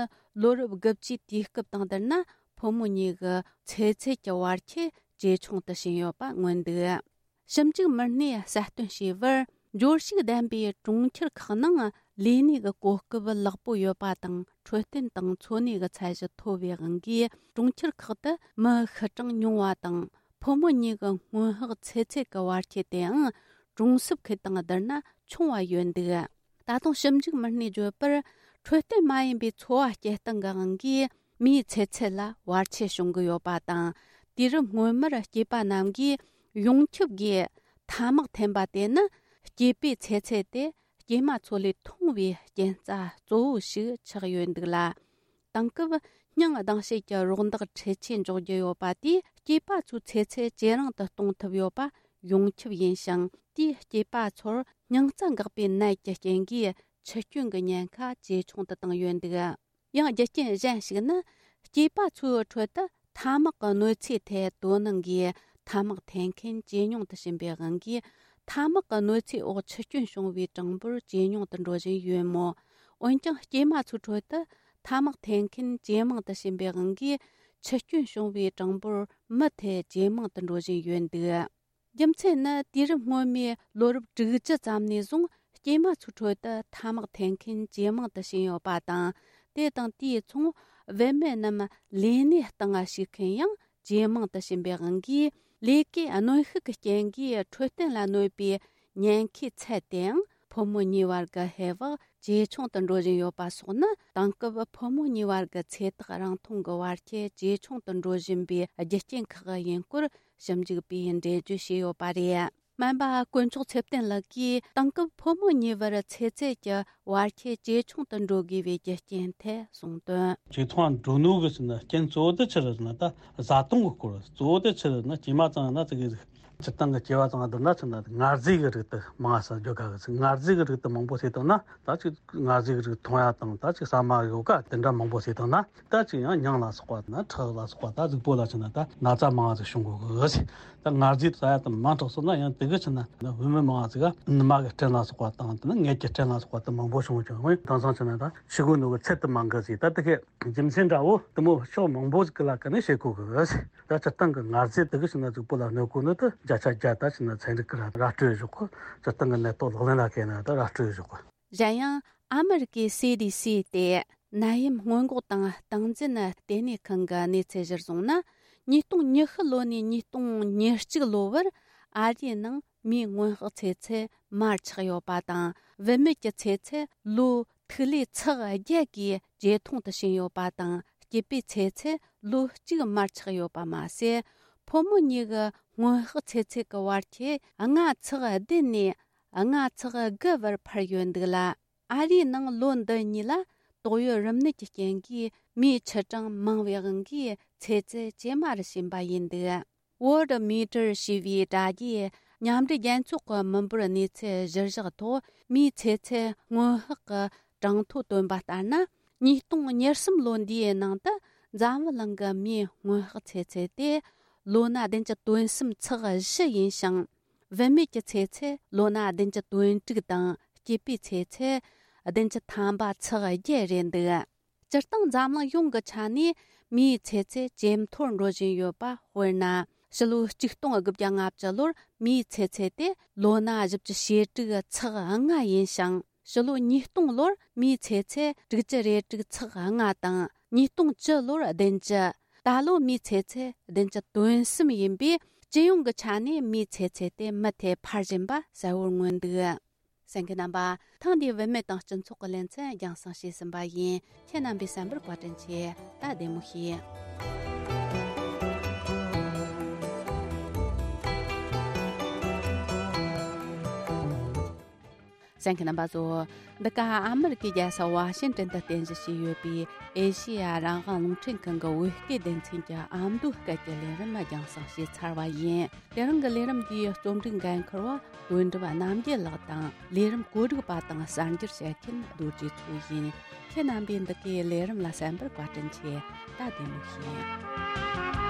ལོ་རབས་དགུ་བཅུའི་དུས་སྐབས་དང་བསྡུར་ན་ཕོ་མོ་གཉིས་ཀྱི་ཚེ་ཚད་ཀྱི་བར་ཁྱད་ཇེ་ཆུང་དུ་ཕྱིན་ཡོད་པ་མངོན་འདུག་ཞིབ་འཇུག་མི་སྣས་གསལ་སྟོན་བྱས་པར། འབྱོར་ཕྱུག་ལྡན་པའི་གྲོང་ཁྱེར་ཁག་ནང་ལས་གནས་ཀྱི་གོ་སྐབས་ལེགས་པོ་ཡོད་པ་དང་། འཕྲོད་བསྟེན་དང་འཚོ་གནས་ཀྱི་ཚད་གཞི་མཐོ་བའི་དབང་གིས། གྲོང་ཁྱེར་ཁག་ཏུ་མི་ཤི་གྲངས་ཉུང་བ་དང་། ཕོ་མོ་གཉིས་ཀྱི་སྔོན་དཔག་ཚེ་ཚད་ཀྱི་བར་ཁྱད་དེའང་གྲོང་གསེབ་ཁུལ་དང་བསྡུར་ན་ཆུང་བ་ཡོད་འདུག་ད་དུང་ཞིབ་འཇུག་མི་སྣས་བརྗོད་པར། འཕྲོད་བསྟེན་མ་ཡིན་པའི་འཚོ་བ་སྐྱེལ་སྟངས་ཀྱི་དབང་གིས་མིའི་ཚེ་ཚད་ལ་བར་ཆད་བྱུང་གི་ཡོད་པ་དང་། དུས་རབས་སྔོན་མར་སྐྱེས་པ་རྣམས་ཀྱིས་ཡོངས་ཁྱབ་ཀྱིས་ཐ་མག་འཐེན་པ་དེ་ནི་སྐྱེས་པའི་ཚེ་ཚད་དེ་སྐྱེས་མ་ཚོ་ལས་ཐུང་བའི་རྐྱེན་རྩ་གཙོ་བོ་ཞིག་ཆགས་ཡོད་འདུག་ལ། དེང་སྐབས་སྙིང་སྡང་བྱེད་ཀྱི་རོགས་འདེགས་འཕྲུལ་ཆས་འཇོག་རྒྱུ་ཡོད་པ་དེས་སྐྱེས་པ་ཚོའི་ཚེ་ཚད་ཇེ་རིང་དུ་གཏོང་ཐུབ་ཡོད་པ་ཡོངས་ཁྱབ་ཡིན་ཞིང་། དེས་སྐྱེས་པ་ཚོར་སྙིང་རྩ་འགག་པའི་ནད་ཀྱི་རྐྱེན་གྱིས་འཆི་སྐྱོན་གྱི་ཉེན་ཁ་ཇེ་ཆུང་དུ་བཏང་ཡོད་འདུག་ཡང་རྒྱུ་རྐྱེན་གཞན་ཞིག་ནི། སྐྱེས་པ་ཚོའི་ཁྲོད་དུ་ ཐ་མག་གི་གནོད་འཚེའི་ཐད་དོ་སྣང་གིས་ཐ་མག་འཐེན་མཁན་ཇེ་ཉུང་དུ་ཕྱིན་པའི་དབང་གིས། ཐ་མག་གི་གནོད་འཚེའི་འོག་འཆི་སྐྱོན་བྱུང་བའི་གྲངས་འབོར་ཇེ་ཉུང་དུ་འགྲོ་བཞིན་ཡོད་མོད། འོན་ཀྱང་སྐྱེས་མ་ཚོའི་ཁྲོད་དུ་ཐ་མག་འཐེན་མཁན་ཇེ་མང་དུ་ཕྱིན་པའི་དབང་གིས། འཆི་སྐྱོན་བྱུང་བའི་གྲངས་འབོར་མུ་མཐུད་ཇེ་མང་དུ་འགྲོ་བཞིན་ཡོད་འདུག་རྒྱུ་མཚན་ནི་དུས་རབས་སྔོན་མའི་ལོ་རབས་དྲུག་ཅུ་ཙམ་ནས་བཟུང་སྐྱེས་མ་ཚོའི་ཁྲོད་དུ་ཐ་མག་འཐེན་མཁན་ཇེ་མང་དུ་ཕྱིན་ཡོད་པ་དང་། དེ་དང་དེའི་མཚུངས། བུད་མེད་རྣམས་ལས་གནས་སྟེང་ཞུགས་མཁན་ཡང་ཇེ་མང་དུ་ཕྱིན་པའི་དབང་གིས། ལས་ཀའི་གནོན་ཤུགས་ཀྱི་རྐྱེན་གྱིས་འཕྲོད་བསྟེན་ལ་གནོད་པའི་ཉེན་ཁའི་ཚད་དེའང་ཕོ་མོ་གཉིས་བར་གྱི་ཧེ་བག་ཇེ་ཆུང་དུ་འགྲོ་བཞིན་ཡོད་པ་སོགས་ནི། དེང་སྐབས་ཕོ་མོ་གཉིས་བར་གྱི་ཚེ་ཐག་རིང་ཐུང་གི་བར་ཁྱད་ཇེ་ཆུང་དུ་འགྲོ་བཞིན་པའི་རྒྱུ་རྐྱེན་ཁག་ཡིན་སྐོར་ཞིབ་འཇུག་པས་འགྲེལ་བརྗོད་བྱས་ཡོད་པ་རེད། སྨན་པ་དཀོན་མཆོག་ཚེ་བརྟན་ལགས་ཀྱིས་དེང་སྐབས་ཕོ་མོ་གཉིས་བར་ཚེ་ཚད་ཀྱི་བར་ཁྱད་ཇེ་ཆུང་དུ་འགྲོ་དགོས་པའི་རྒྱུ་རྐྱེན་ཐད་གསུངས་དོན། ཇེ་ཐུང་ང་འགྲོ་ནོ་གི་ཟེར་ན་རྐྱེན་གཙོ་བོ་དེ་ཆི་རེད་ཟེར་ན། ད་བཟའ་བཏུང་གི་སྐོར། གཙོ་བོ་དེ་ཆི་རེད་ཟེར་ན། སྐྱེས་མ་ཚང་ན་ཙི་གེ་ཟིག་སྤྱིར་བཏང་གི་སྐྱེ་བ་ཚང་བསྡུར་ན་ཆི་ན་ངར་རྫས་ཀྱི་རིགས་དེ་མང་ས་འཇོག་ག་གི་ཟིག་ངར་རྫས་ཀྱི་རིགས་དེ་མང་པོ་ཟོས་བཏང་ན། ད་ཅིག་ངར་རྫས་ཀྱི་རིགས་འཐུང་ཡ་དང་། ད་ཅིག་ཟ་མ་ཡོ་ག་དེ་འདྲ་མང་པོ་ཟོས་བཏང་ན། ད་ཅིག་ཡང་མྱང་ལ་སོགས་པ་དང་ཁྲག་ལ་སོགས་པ། ད་གཟུགས་པོ་ལ་ཆི་ན་ད་ན་ཚ་མང་ཟིག་བྱུང་གོ་གི་ཟིག་ད་ངར་རྫས་ཟ་ཡ་དེ་མང་དྲགས་སོང་ན་ཡང་དེ་གི་ཆི་ན་བུད་མེད་མང་ཟིག་ག་ནུ་མ་གི་སྐྲན་ལ་སོགས་པ་དང་། དེ་ནི་མངལ་གྱི་སྐྲན་ལ་སོགས་པ་དེ་མང་པོ་བྱུང་ཀྱང་། འོན་དེང་སང་ཆི་ན་ད་ཤི་གོ་ནོ་གི་ཚད་དེ་མང་གི་ཟིག་ད་དེ་གི་རྒྱུ་མཚན་འདྲ་བོ་དེ་མོ་ཕྱོགས་མང་པོ་ཟིག་གི་ལ་ཀ་ནས་བཤད་གོ་གི་ཟིག་ད་སྤྱིར་བཏང་གི་ངར་རྫས་དེ་གི་ཆི་ན་གཟུགས་པོ་ལ་གནོད་གོ་ནི་དེ་བརྒྱ་ཆ་བརྒྱ་ད་ཆི་ན་ཚན་རིག་གི་ར་ར་སྤྲོད་བཞག་གོ་སྤྱིར་བཏང་གི་ནད་ཐོག་ལག་ལེན་ལ་བཀལ་ན་ད་ར་སྤྲོད་བཞག་གོ་གཞན་ཡང་ཨ་མི་རི་ཀའི་སི་ཌི་སི་སྟེ་ནད་ཡམས་སྔོན་འགོག་དང་སྟངས་འཛིན་ལྟེ་གནས་ཁང་གི་གནས་ཚུལ་གཞིར་བཟུང་ན། ཉིས་སྟོང་ཉི་ཤུ་ལོ་ནས་ཉིས་སྟོང་ཉེར་གཅིག་ལོ་བར་ཨ་རིའི་ནང་མིའི་སྔོན་དཔག་ཚེ་ཚད་མར་ཆག་ཡོད་པ་དང་། བུད་མེད་ཀྱི་ཚེ་ཚད་ལོ་ཐིག་ལེ་ཚེག་བརྒྱད་ཀྱིས་ཇེ་ཐུང་དུ་ཕྱིན་ཡོད་པ་དང་། སྐྱེས་པའི་ཚེ་ཚད་ལོ་གཅིག་མར་ཆག་ཡོད་པ་མ་ཟད། ཕོ་མོ་གཉིས་ཀྱི་སྔོན་དཔག་ཚེ་ཚད་ཀྱི་བར་ཁྱད་ལྔ་ཚེག་བདུན་ནས་ལྔ་ཚེག་དགུ་བར་འཕར་ཡོད་འདུག་ལ། ཨ་རིའི་ནང་ལོ་འདི་གཉིས་ལ་ཏོག་དབྱིབས་རིམས་ནད་ཀྱི་རྐྱེན་གྱིས་མིའི་ཆུ་གྲངས་མང་བའི་དབང་གིས་ཚེ་ཚད་ཇེ་དམའ་རུ་ཕྱིན་པ་ཡིན་འདུག Worldometer ཞེས་པའི་དྲ་རྒྱའི་མཉམ་འབྲེལ་རྒྱལ་ཚོགས་ཀྱི་མི་འབོར་གནས་ཚུལ་གཞིར་བཞག་ཐོག་མིའི་ཚེ་ཚད་སྔོན་དཔག་གི་གྲངས་ཐོ་བཏོན་པ་ལྟར་ན། ཉིས་སྟོང་ཉེར་གསུམ་ལོ་འདིའི་ནང་དུ་འཛམ་བུ་གླིང་གི་མིའི་སྔོན་དཔག་ཚེ་ཚད་དེ་ལོ་ན་བདུན་ཅུ་དོན་གསུམ་ཚེག་བཞི་ཡིན་ཞིང་། བུད་མེད་ཀྱི་ཚེ་ཚད་ལོ་ན་བདུན་ཅུ་དོན་དྲུག་དང་། སྐྱེས་པའི་ཚེ་ཚད་བདུན་ཅུ་ཐམ་པ་ཚེག་བརྒྱད་རེད་འདུག་སྤྱིར་བཏང་འཛམ་གླིང་ཡོངས་ཀྱི་ཆ་ནས་མིའི་ཚེ་ཚད་ཇེ་མཐོར་འགྲོ་བཞིན་ཡོད་པ། དཔེར་ན། ཕྱི་ལོ་ཆིག་སྟོང་དགུ་བརྒྱ་ལྔ་བཅུ་ལོར་མིའི་ཚེ་ཚད་དེ་ལོ་ན་བཞི་བཅུ་ཞེ་དྲུག་ཚེག་ལྔ་ཡིན་ཞིང་། ཕྱི་ལོ་ཉིས་སྟོང་ལོར་མིའི་ཚེ་ཚད་དྲུག་ཅུ་རེ་དྲུག་ཚེག་ལྔ་དང་། ཉིས་སྟོང་བཅུ་ལོར་བདུན་ཅུ། ད་ལོ་མིའི་ཚེ་ཚད་བདུན་ཅུ་དོན་གསུམ་ཡིན་པས། སྤྱི་ཡོངས་ཀྱི་ཆ་ནས་མིའི་ཚེ་ཚད་དེ་མུ་མཐུད་འཕར་བཞིན་པ་གསལ་བོར་མངོན་འདུག་གསན་མཁན་རྣམ་པ། ཐེངས་འདིའི་བུད་མེད་དང་སྤྱི་ཚོགས་ཀྱི་ལེ་ཚན་རྒྱང་སྲིང་བྱས་ཟིན་པ་ཡིན། ཁྱེད་རྣམ་པས་གསན་པར་བཀའ་དྲིན་ཆེ། ད་བདེ་མོ་བྱོས། གསན་མཁན་རྣམ་པ་ཚོ། འདི་ག་ཨ་མི་རི་ཀའི་རྒྱལ་ས་ཝ་ཤིང་ཏན་དུ་རྟེན་གཞི་བྱས་ཡོད་པའི་ཨེ་ཤེ་ཡ་རང་དབང་རླུང་འཕྲིན་ཁང་གི་བོད་སྐད་སྡེ་ཚན་གྱི་ཨ་མདོའི་སྐད་ཀྱི་ལས་རིམ་རྒྱང་སྲིང་བྱས་ཚར་བ་ཡིན། དེ་རིང་གི་ལས་རིམ་འདིའི་རྩོམ་སྒྲིག་འགན་འཁུར་བ་དོན་གྲུབ་རྣམ་རྒྱལ་ལགས་དང་། ལས་རིམ་བཀོད་སྒྲིག་པ་དང་གསར་འགྱུར་བཤད་མཁན་རྡོ་རྗེ་མཚོ་ཡིན། ཁྱེད་རྣམ་པས་འདི་གའི་ལས་རིམ་ལ་གསན་པར་བཀའ་དྲིན་ཆེ། ད་བདེ་མོ་བྱོས།